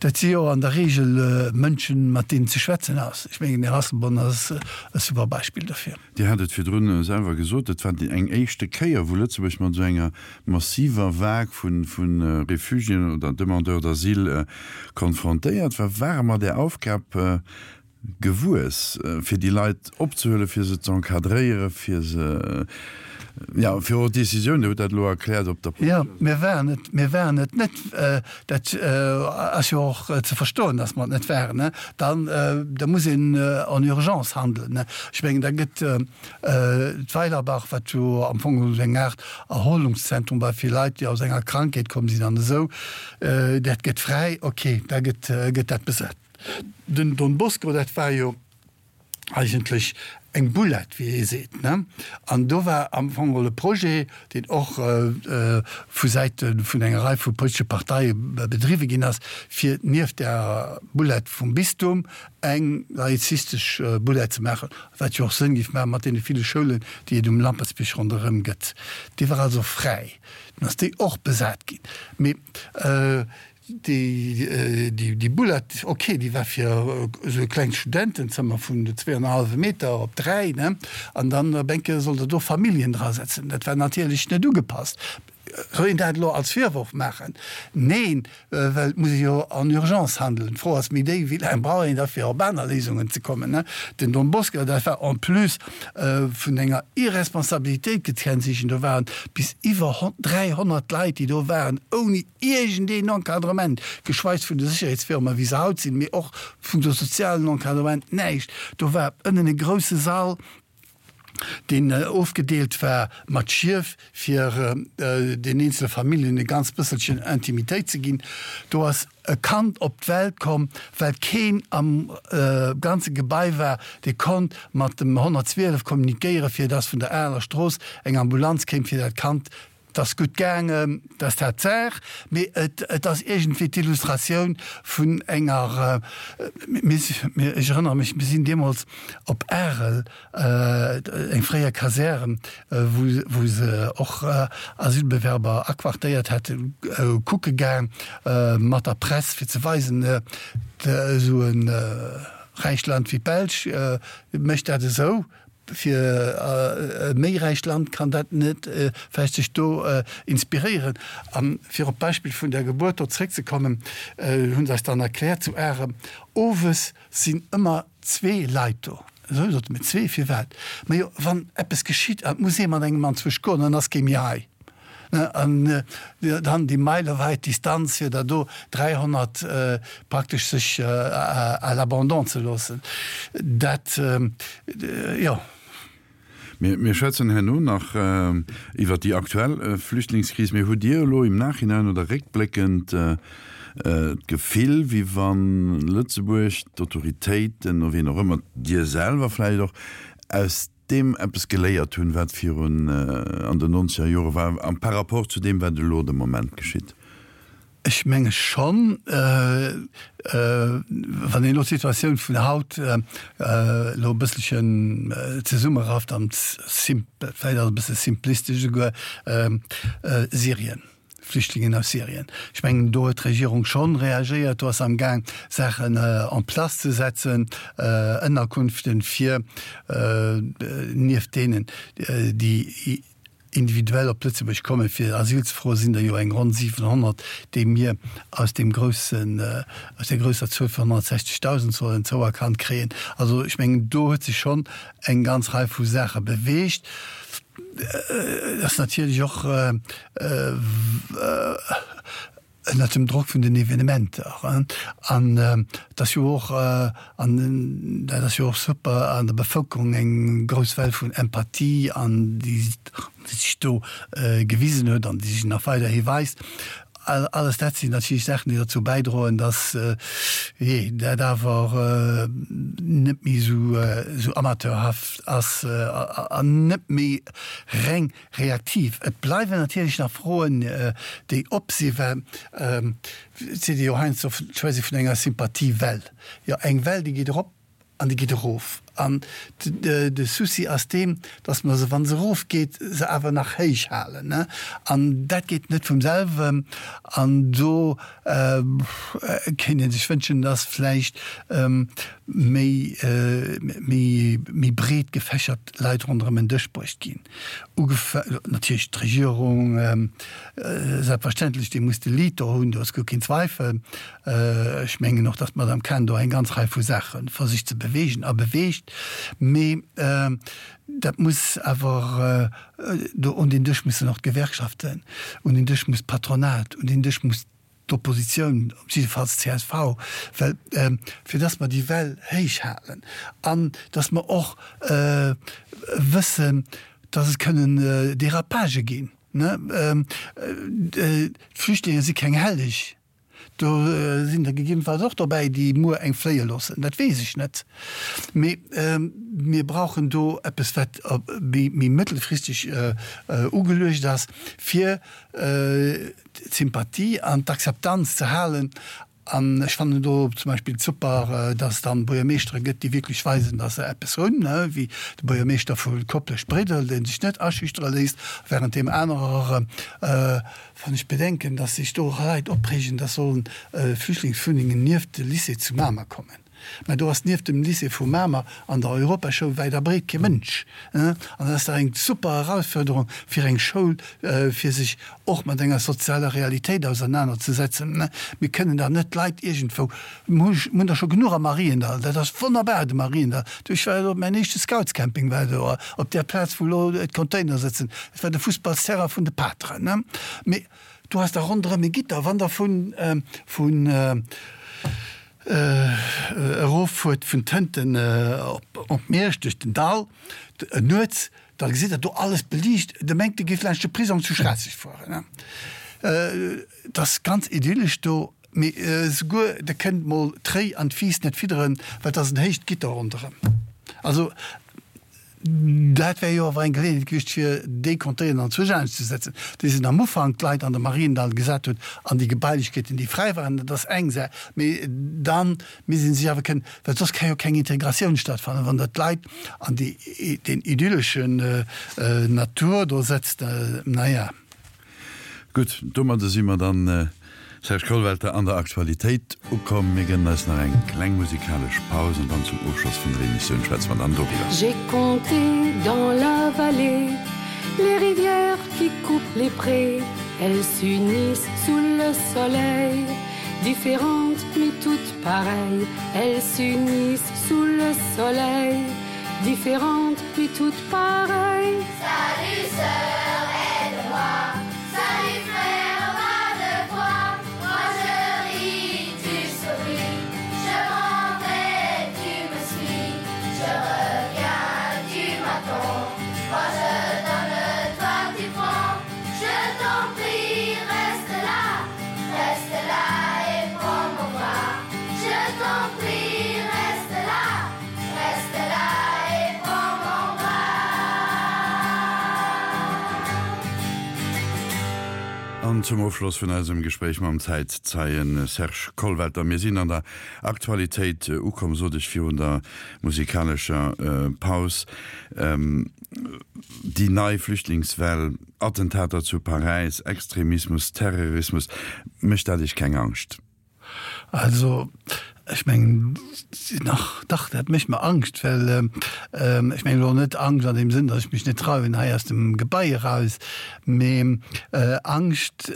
dat si jo an der Regel Mënschen, mat deenen ze schwätzen ass. Ech mengen, den Här Asselborn ass e super Beispill dofir. Dir hat et virdrun selwer gesot, et war eng éischte Kéier, wou Lëtzebuerg mat esou enger massiver Vague vu Refugiéen oder Demandeurs d'asile konfrontéiert war. Ware mer där Aufgab gewuess, fir déi Leit opzehuelen, fir se ze encadréieren, fir se, jo, fir och d'Décisioun, Dir hutt dat elo erkläert, op der Jo, mir waren et, mir waren et net. Dat ass jo och ze verstoen, dass mer et net waren. Dann, da muss een en urgence handelen. Ech mengen, da gëtt d'Weilerbach, wat jo am Fong esou eng Aart Erholungszentrum war fir Leit, déi aus enger Krankheet komm sinn an esou, dat gëtt fräi, okay, da gëtt, gëtt dat besat. Den Don Bosco, dat war jo eigentlech eng Boulette, wéi ee seet, ne? An do war am Fong geholl e Projet, deen och vu Säite vun enger Rei vu politesche Parteie bedriwwe ginn ass, fir nieft der Boulette vum Bistum eng laizistesch Boulette ze maachen, wat jo och Sënn géif maachen mat deene ville Schoulen, déi et um Lampertsbierg ronderëm gëtt. Déi war also fräi. Dunn ass déi och besat ginn. Mee Déi Boulette, ok, déi war fir esou e klengt Studentenzëmmer vun zweeannerhallwe Meter op 3, ne? An dann op eng Kéier sollt Der do Familljen drasetzen. Dat war natierlech net ugepasst. Soll een dat elo als Virworf maachen? Neen, well et muss ee jo en urgence handelen. D'Fro ass méi déi, wéi laang brauch een da fir op aner Léisungen ze kommen, ne? Den Don Bosco, dat war en plus vun enger Irresponsabilitéit gekennzeechent. Do waren bis iwwer 300 Leit, déi do waren, ouni iergendeen Encadrement, geschweis vun de Sécherheetsfirmen, wéi se haut sinn, mee och vun de sozialen Encadrement, näischt. Do war ënnen e grousse Sall, deen ofgedeelt war mat Schief, fir den eenzele Familljen e ganz bësselchen Intimitéit ze ginn. Do ass e Kand op d'Welt komm, well keen am ganze Gebai war, dee konnt mat dem 112 kommunikéieren, fir dass vun der Areler Strooss eng Ambulanz kéim, fir dat Kand 't ass gutt gaangen, 't ass dat d'Saach, mee et ass iergendwéi d'Illustratioun vun enger, mir, ech erënnere mech, mir sinn deemools op Arel, eng fréier Kasär, wou se och Asylbewerber aquartéiert hätten, kucke gaang mat der Press, fir ze weisen, esou e räicht Land wéi d'Belsch mécht dat esou. Fir e méi räicht Land kann dat net vläicht sech do inspiréieren. A fir op d'Beispill vun der Gebuert do zréckzekommen, hu se eis dann erkläert zu Arem, owes sinn ëmmer zwee Leit do. Esou, sote mir, zwee, firwat? Majo, wann eppes geschitt an et muss ee mat engem anzwousch goen, dann ass kee méi hei. An dann déi meilewäit Distanz, fir der do 300 praktesch sech à l'abandon ze loossen, dat, jo. Mir schwätzen herno nach iwwert déi aktuell Flüchtlingskris. Mee hutt Dir elo im Nachhinein oder réckbléckend d'Gefill, wéi wann Lëtzebuerg, d'Autoritéiten, wien och ëmmer, Dir selwer vläicht och, aus deem eppes geléiert hunn, wat virun an den nonzeger Jore war, a par rapport zu deem, wat elo de Moment geschitt? Ech menge schonn, wann een elo d'Situatioun vun haut elo e bësselchen zesummerafft an vläicht ass e bësse simplistesch esouguer, Syrien. Flüchtlingen aus Syrien. Ech mengen, do huet d'Regierung schonn reagéiert. Do ass se amgaang, Saachen en place ze setzen, Ënnerkunften fir nieft deenen, déi individuell op Lëtzebuerg kommen, fir Asyl ze froen, sinn der jo eng ronn 700, déi mir aus deem groussen, aus där grousser Zuel vun 160.000 sollen zouerkannt kréien. Also ech mengen, do huet sech schonn eng ganz Rei vu Saache beweegt. Et ass natierlech och ënnert dem Drock vun den Evenementer. An et ass jo och, an dat ass jo och super, an der Bevëlkerung eng grouss Well vun Empathie an déi sech do gewisen huet an déi sech nach weiderhi weist. Alles dat sinn natierlech Saachen, déi derzou bäidroen, datt, jee, dat awer net méi esou amateurhaft ass an net méi reng reaktiv. Et bleiwen natierlech nach Froen, déi op sinn, well et seet ee jo heiansdo, d'Schwätz ee vun enger Sympathiewell. Jo, eng Well, déi geet erop An déi geet erof. An de Souci ass deen, dass mer se, wa se erofgeet, se awer nach héich halen. An dat geet net vum selwen. An do kéint ee sech wënschen, dass vläicht méi, méi breet gefächert Leit ronderëm en Dësch bruecht ginn. Ugefa natierlech d'Regierung, selbstverständlech, déi muss de Lead do hunn, do ass guer keen Zweifel. Ech mengen och, datt d'Madame Cahen do eng ganz Rei vu Saache versicht ze beweegen a beweegt. Mee dat muss awer, do un deen Dësch mussen och d'Gewerkschaften, un deen Dësch muss d'Patronat, un deen Dësch muss d'Oppositioun, op jiddefalls d'CSV, well fir datt mer déi Well héich halen an datt mer och wëssen, datt et kënnen Dérapagë ginn. D'Flüchtlinge si keng Helleg. Do sinn der gegebenfalls och dobäi, déi muer eng fléie loossen, dat weess ech net. Mee mir brauchen do eppes, wat méi mëttelfristeg ugeluecht ass, fir d'Sympathie an d'Akzeptanz ze halen. An ech fannen do zum Beispill super, dass et dann Buergermeeschtere gëtt, déi wierklech weisen, dass se eppes hunn, wéi de Buergermeeschter vu Koplescht-Bréidel, dee sech net aschüchtere léisst, während deem anerer Wann ech bedenken, dass sech do Leit opreegen, dass sollen Flüchtlingswunnengen nieft de Lycée zu Mamer kommen. Mä do ass nieft dem Lycée vu Mamer an der Europaschoul wäit a breet kee Mënsch. An dat ass dach eng super Erausfuerderung fir eng Schoul, fir sech och mat enger sozialer Realitéit ausernanerzesetzen. Mir kënnen dach net d'Leit iergendwou, mir hunn der scho genuch am Mariendall, dat ass wonnerbar, de Mariendall. Du, ech war do, mäin éischte Scoutscamping war do op där Plaz, wou elo d'Container sëtzen. Dat war de Fussballsterrain vun de Pateren. Mee do ass da ronderëm e Gitter, wann Der vun, vun eroffuert vun Tënten op Miersch duerch den Dall nuets, da gesitt Der do alles beliicht. Der mengt, Der géift laanscht de Prisong zu Schraasseg fueren. Et ass ganz idyllesch do. Mee esouguer der kënnt mol d'Réi an d'Fiiss net fidderen, well et ass en héicht Gitter ronderëm. Also dat wär jo awer eng Geleeënheet gewiescht, fir déi Containeren anzwousch anescht ze setzen, déi se am Ufank d'Leit an de Mariendall gesat hunn an déi Gebailechkeeten, déi fräi waren. Dat ass eng Saach. Mee da misst ee sech awer kënnen, well soss ka jo keng Integratioun stattfannen, wann Der d'Leit an déi, deen idylleschen Natur do setzt. Naja. Gutt, domadde si mer dann, Serge Kollwelter, an der Aktualitéit ukomm. Mir gënnen eis nach eng kleng musikalesch Paus an dann zum Ofschloss vun der Emissioun schwätze mer dann doriwwer. J'ai compté dans la vallée les rivières qui coupent les prés Elles s'unissent sous le soleil Différentes mais toutes pareilles Elles s'unissent sous le soleil Différentes mais toutes pareilles Salut sœur, aide-moi Salut frère, va de toi Moi je ris, tu souris Je m'en vais, tu me suis Je reviens, tu m'attends Moi je donne, toi tu prends Je t'en prie, reste là Reste là et prends mon bras Je t'en prie, reste là Reste là et prends mon bras. An zum Ofschloss vun eisem Gespréich mam Zäitzeien Serge Kollwelter, mir sinn an der Aktualitéit ukomm, sot ech virun der musikalescher Paus, déi nei Flüchtlingswell, Attentater zu Paräis, Extremismus, Terrorismus, mécht dat Iech keng Angscht? Also, ech mengen, nach, dach, dat mécht mer Angscht, well, ech mengen elo net Angscht an deem Sënn, datt ech mech net trauen hei aus dem Gebai eraus, mee Angscht,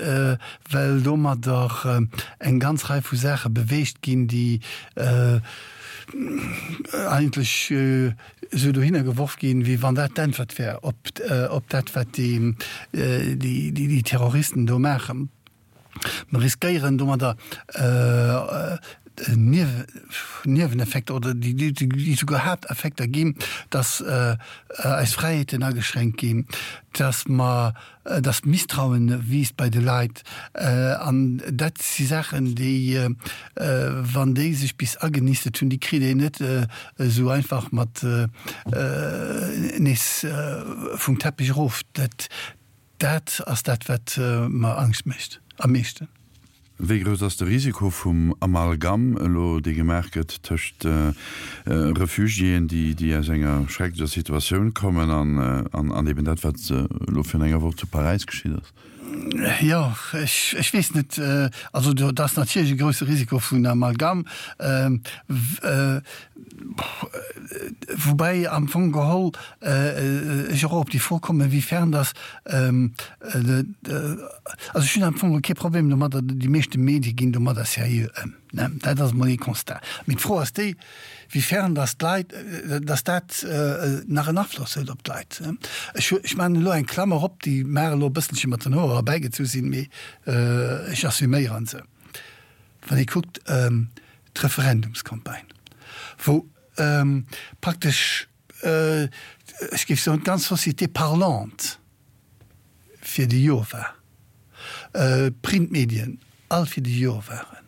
well domadder eng ganz Rei vu Saache beweegt ginn, déi eigentlech esou dohinner geworf ginn, wéi wann dat d'Äntwert wär op dat, wat déi Terroristen do maachen. Mer riskéieren domadder. Nieweneffekter oder déi souguer Haapteffekter ginn, dass eis Fräiheeten ageschränkt ginn, dass mer, dass d'Misstrauen wiisst bei de Leit. An dat si Saachen, déi, wann déi sech bis agenistet hunn, déi kritt een net esou einfach mat nees vum Teppich erof. Dat, Dat ass dat, wat mer Angscht mécht am meeschten. Wéi grouss ass de Risiko vum Amalgam elo, dee gemaach gëtt tëscht Refugiéen, déi aus enger schrecklecher Situatioun kommen, an eben dat, wat elo virun enger Woch zu Paräis geschitt ass? Jo, ech weess net. Also do ass natierlech e grousse Risiko vun Amalgam. Woubäi am Fong geholl ech och op déi Fro kommen, inwiefern dass, also ech hunn am Fong kee Problem domadder, déi meeschte Medie ginn domadder seriö ëm, ne, dat ass emol ee Constat. Mee d'Fro ass déi, wiefern dass d'Leit, dass dat nach en Afloss huet op d'Leit. Ech, ech maachen elo eng Klammer op, déi mag elo e bësselche mat den Hoer erbäigezu sinn, mee ech assuméiere se. Wann ee kuckt d'Referendumscampagne, wou praktesch, ech géif soen, d'ganz Société parlante fir de Jo war, d'Printmedien all fir de Jo waren.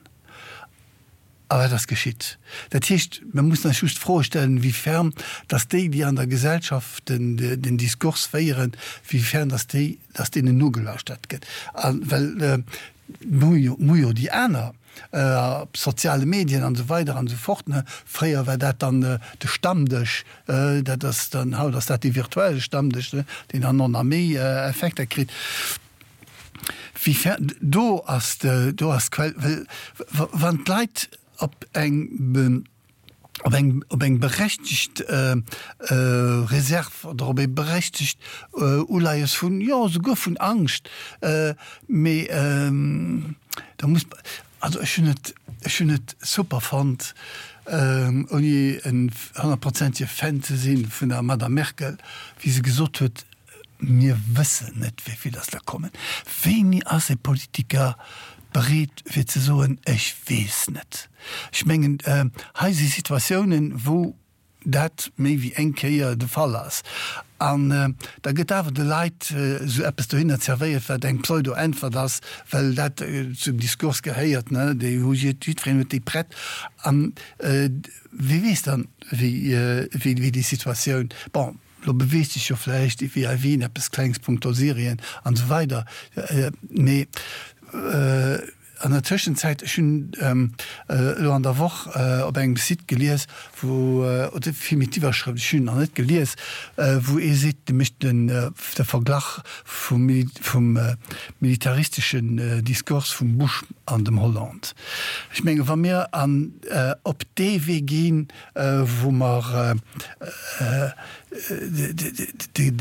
A wat ass geschitt? Dat heescht, mir mussen eis just d'Froe stellen, wéi ferm dass déi, déi an der Gesellschaft den Diskurs féieren, wéi ferm dass déi, dass deenen nogelauschtert gëtt. A well mir hu jo déi aner op soziale Medien an esou weider an esou fort, ne. Fréier war dat dann de Stammdësch, dat ass dann, haut ass dat dee virtuelle Stammdësch, ne, deen dann och nach méi Effekter kritt. Wéi fer, do ass de, do ass d'Quell, well wann d'Leit op eng, op eng, op eng berechtegt Reserv oder op ee berechtegt Uleies vun, jo, souguer vun Angscht, mee da muss, also ech hunn et, ech hunn et super fonnt, ouni en honnertprozentege Fan ze si vun der Madame Merkel, wéi se gesot huet, Mir wëssen net, wéi vill dass der kommen. Wéini ass e Politiker bereet fir ze soen, ech weess net? Ech mengen, hei si Situatiounen, wou dat méi wéi eng Kéier de Fall ass. An da gëtt awer de Leit esou eppes dohinner zerwéiert, wat eng Pseudo-Äntwert ass, well dat zum Diskurs gehéiert, ne, déi hu jiddwereen huet déi prett. An wie weess dann, wéi déi Situatioun, bon, Lo beweegt sech jo vläicht wéi a Wien eppes Klengs punkto Syrien an esou weider, mee an der Tëschenzäit, ech hunn elo an der Woch op engem Site gelies, wou, oder villméi d'Iwwerschrëft, ech hunn en nach net gelies, wou ee seet, dee mécht den de Verglach vum vum militaristeschen Diskurs vum Bush an dem Hollande. Ech menge wa mir an op dee Wee ginn, wou mer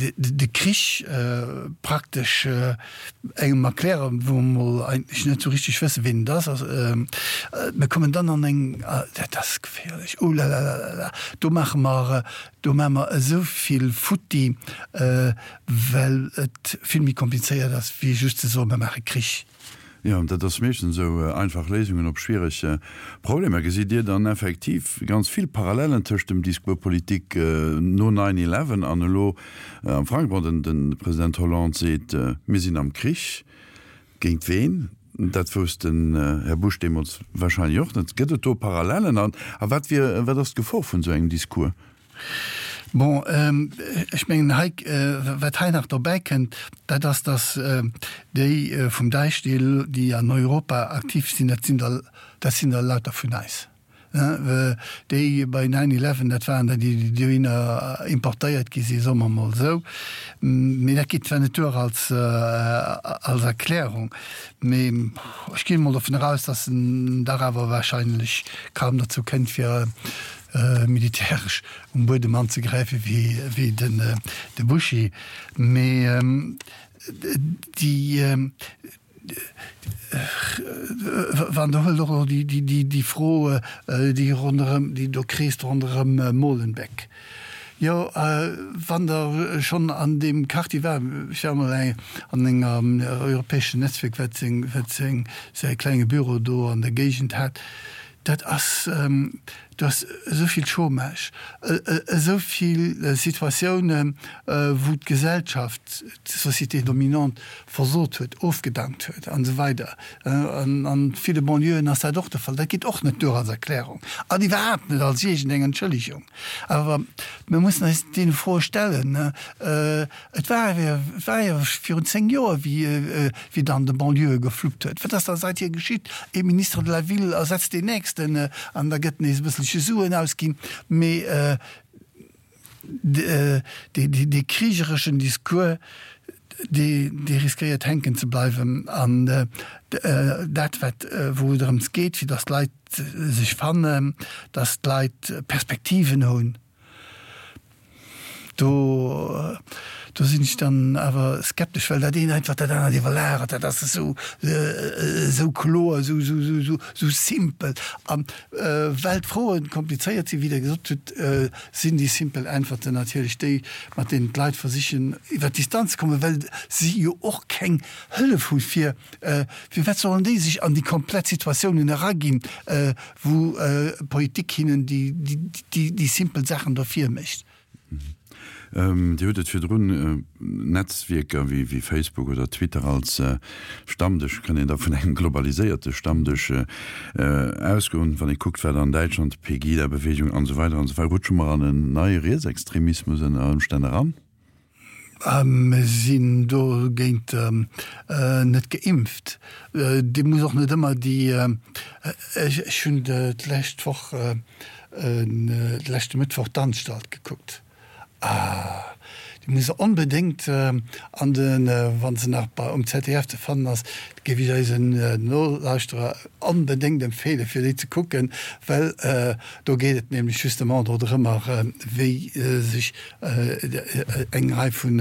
de Krich praktesch engem erklären, wou mer mol eigentlech net esou richteg wëssen, ween et ass. Mir kommen dann an eng, dat ass geféierlech, oh la la la la la, do maache mer, do maache mer esou vill futti, well et vill méi komplizéiert ass, wéi just ze soen, mer maache Krich. Jo, dat ass meeschtens esou, einfach Léisungen op schwiereg Problemer. Gesitt Dir dann effektiv ganz vill Parallellen tëscht dem Discours politique no Nine Eleven an elo am Frankräich? Bon, de President Hollande seet, mir sinn am Krich. Géint ween? Dat wousst den Här Bush deemools wahrscheinlech och net. Gëtt et do Parallellen? A wat wier, wat ass d'Gefor vun esou engem Discours? Bon, ech mengen hei, wat hei nach dobäi kënnt, dat ass, datt déi vum Daesh, déi elo, déi an Europa aktiv sinn, dat sinn der, dat sinn der lauter vun eis. Déi bei Nine Eleven, dat waren der, déi dohinner importéiert gi sinn, soe mer emol esou. Mee dat geet zwar net duer als, als Erklärung, mee ech ginn emol dovun eraus, datt en dach awer wahrscheinlech kaum dozou kënnt, fir militäresch um Buedem anzegräifen wéi de Buschi, mee déi wann Der huelt och elo déi Fro, déi ronderëm, déi do kreest ronderëm Molenbeek. Jo, wann Der schonn an deem Quartier waart, ech war emol an engem europäeschen Netzwierk, wat seng, wat seng, säi klenge Büro do an der Géigend hat. Dat ass, do ass esou vill Chômage, esou vill Situatiounen, wou d'Gesellschaft, d'Société dominante versot huet, ofgedankt huet an esou weider. An a ville Banlieuën ass dat och de Fall. Dat geet och net duer als Erklärung an iwwerhaapt net als iergendeng Entschëllegung. Awer mir mussen eis deene Froe stellen. Et war et war jo virun 10 Joer, wéi wéi et an de Banlieuë gefluppt huet. Wat ass da seithier geschitt? Ee Ministre de la Ville ersetzt deen nächsten an da gëtt nees e bësselche Suen ausginn. Mee dee krigereschen Discours, dee dee riskéiert hänken ze bleiwen. An dat wat wou et drëms geet, fir datt d'Leit sech fannen, datt d'Leit Perspektiven hunn, Do, do sinn ech dann awer skeptesch, well dat eent einfach dat anert iwwerlagert. Dat ass esou, esou kloer, esou, esou, esou, esou, esou simpel. An well d'Froen komplizéiert sinn, wéi Der gesot hutt, sinn déi simpel Äntwerten natierlech déi, mat deenen d'Leit versichen iwwer d'Distanz ze kommen, well si jo och keng Hëllef hu fir, firwat sollen déi sech an déi komplett Situatiounen eraginn, wou d'Politik hinnen déi simpel Saachen do virmécht. Dir hutt et virdrun, Netzwierker wéi Facebook oder Twitter als Stammdësch, kann een da vun engem globaliséierte Stammdësch ausgoen, wann ee kuckt, wat an Däitschland, d'Pegida-Beweegung an esou weider an esou weider, rutsche mer an en neie Rietsextremismus ënner Ëmstänn eran? Mir sinn dogéint net geimpft. Dir musst och net ëmmer déi, ech hunn d'lescht Woch, de leschte Mëttwoch d'Anstalt gekuckt. Ah, déi muss Der onbedéngt an de, wa se nach bei um ZDF ze fannen ass, géif ech eisen Nolauschterer onbedéngt empfeelen, fir déi ze kucken, well do geet et nämlech justement dodrëmmer, wéi sech eng Rei vun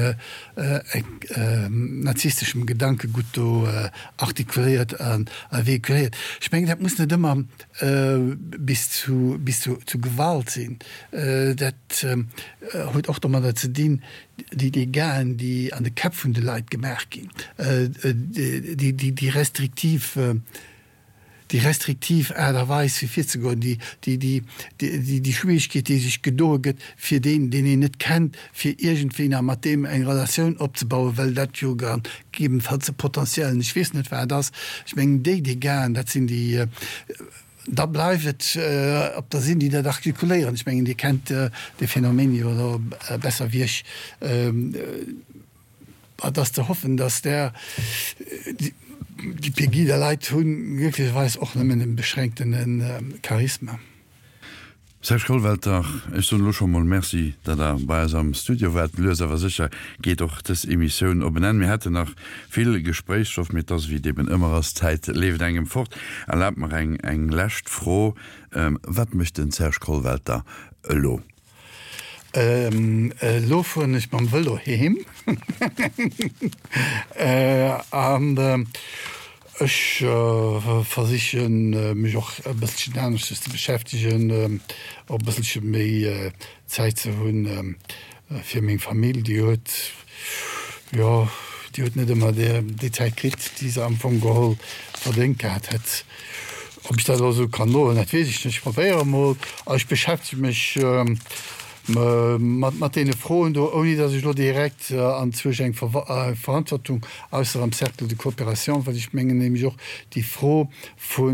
nazisteschem Gedankegutt do artikuléiert a véhiculéiert. Ech mengen, dat muss net ëmmer bis zu bis zu Gewalt sinn. Dat huet och domadder ze dinn, déi Dégâten, déi an de Käpp vun de Leit gemaach ginn, déi restriktiv déi restriktiv Aart a Weis fir virzegoen, déi, déi, déi, déi, déi Schwierigkeet, déi sech gedoe gëtt, fir deen, deen een net kennt, fir iergendwéi nach mat deem eng Relatioun opzebauen, well dat jo gegebenfalls e potentiellen, ech weess net wat ass. Ech mengen, déi Dégâten, dat sinn déi, da bleift et op der sinn, déi dat artikuléieren. Ech mengen, Dir kennt dee Phänomen jo elo besser wéi ech. Et ass ze hoffen, datt där, déi Pegida-Leit hu glécklecherweis och nëmmen e beschränktene Charisma. Serge Kollwelter, ech soen elo scho mol Merci, datt Der bei eis am Studio waart. Lues awer sécher geet och dës Emissioun op en Enn. Mir hätten nach vill Gespréichsstoff, mee et ass wéi et eben ëmmer ass, d'Zäit leeft engem fort. Erlaabt mer eng eng lescht Fro, Wat mécht den Serge Kollwelter elo? Elo fueren ech mam Vëlo heem an ech versichen mech och e bësselchen aneschters ze beschäftegen, och e bësselche méi Zäit ze hunn fir meng Famill. Déi huet, jo, déi huet net ëmmer déi Zäit kritt, déi se am Fong geholl verdéngt gehat hätt. Ob ech dat elo esou kann soen, dat weess ech net. Ech probéiere mol. A ech beschäftege mech mat deene Froen do, ouni datt ech elo direkt anzwousch eng Verantwortung, ausser am Cercle de coopération, well ech mengen nämlech och déi Fro vu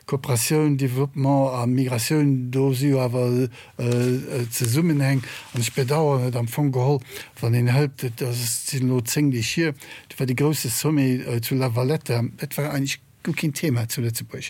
Kooperatioun, Développement a Migratioun, do si jo awer Zesummenhäng. An ech bedauern et am Fong geholl, wann een hëlt, et sinn elo 10 Deeg hier, do war dee grousse Sommet zu La Valletta, dat war eigentlech guer keen Thema zu Lëtzebuerg.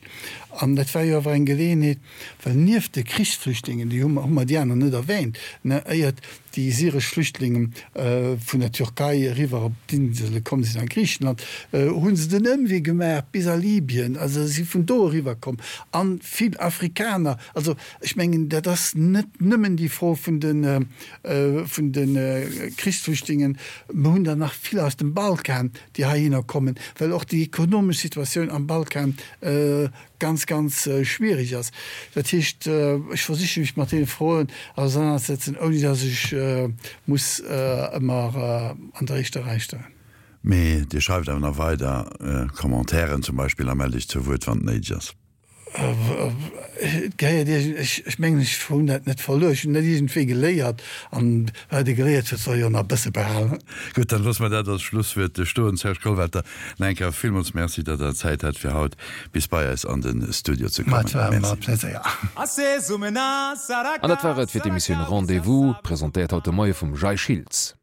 An dat war jo awer eng Geleeënheet, well nieft de Krichsflüchtlingen, déi hu mer, hu mer déi aner net erwähnt, ne, éiert déi syresch Flüchtlinge vun der Türkei eriwwer op d'Insele komm sinn a Griichenland, hu se den Ëmwee gemaach bis a Libyen, also si vun do eriwwer komm, a vill Afrikaner. Also ech mengen, dat ass net nëmmen déi Fro vun de, vun de Krichsflüchtlingen. Mer hunn der nach vill aus dem Balkan, déi heihinner kommen, well och déi ekonomesch Situatioun am Balkan ganz, ganz schwierig ass. Dat heescht, ech versiche mech mat deene Froen ausernanerzesetzen, ouni datt ech muss ëmmer an der éischter Rei stoen. Mee Dir schreift awer nach weider Commentairen zum Beispill a mellt Iech zur Wuert, wann et néideg ass. Et gehéiert iergend, ech mengen ech hunn dat net verluer, ech hunn dat iergendwéi geléiert an wat ee geléiert huet soll ee jo nach e bësse behalen. Gutt, dann loosse mer dat als Schlusswuert stoen. Serge Kollwelter, nach eng Kéier villmools Merci, datt Der Zäit hat fir haut bis bei eis an de Studio ze kommen. Et war mer e Pléséier. An dat war et fir d'Emissioun Rendez-vous, presentéiert haut de Moie vum Jay Schiltz.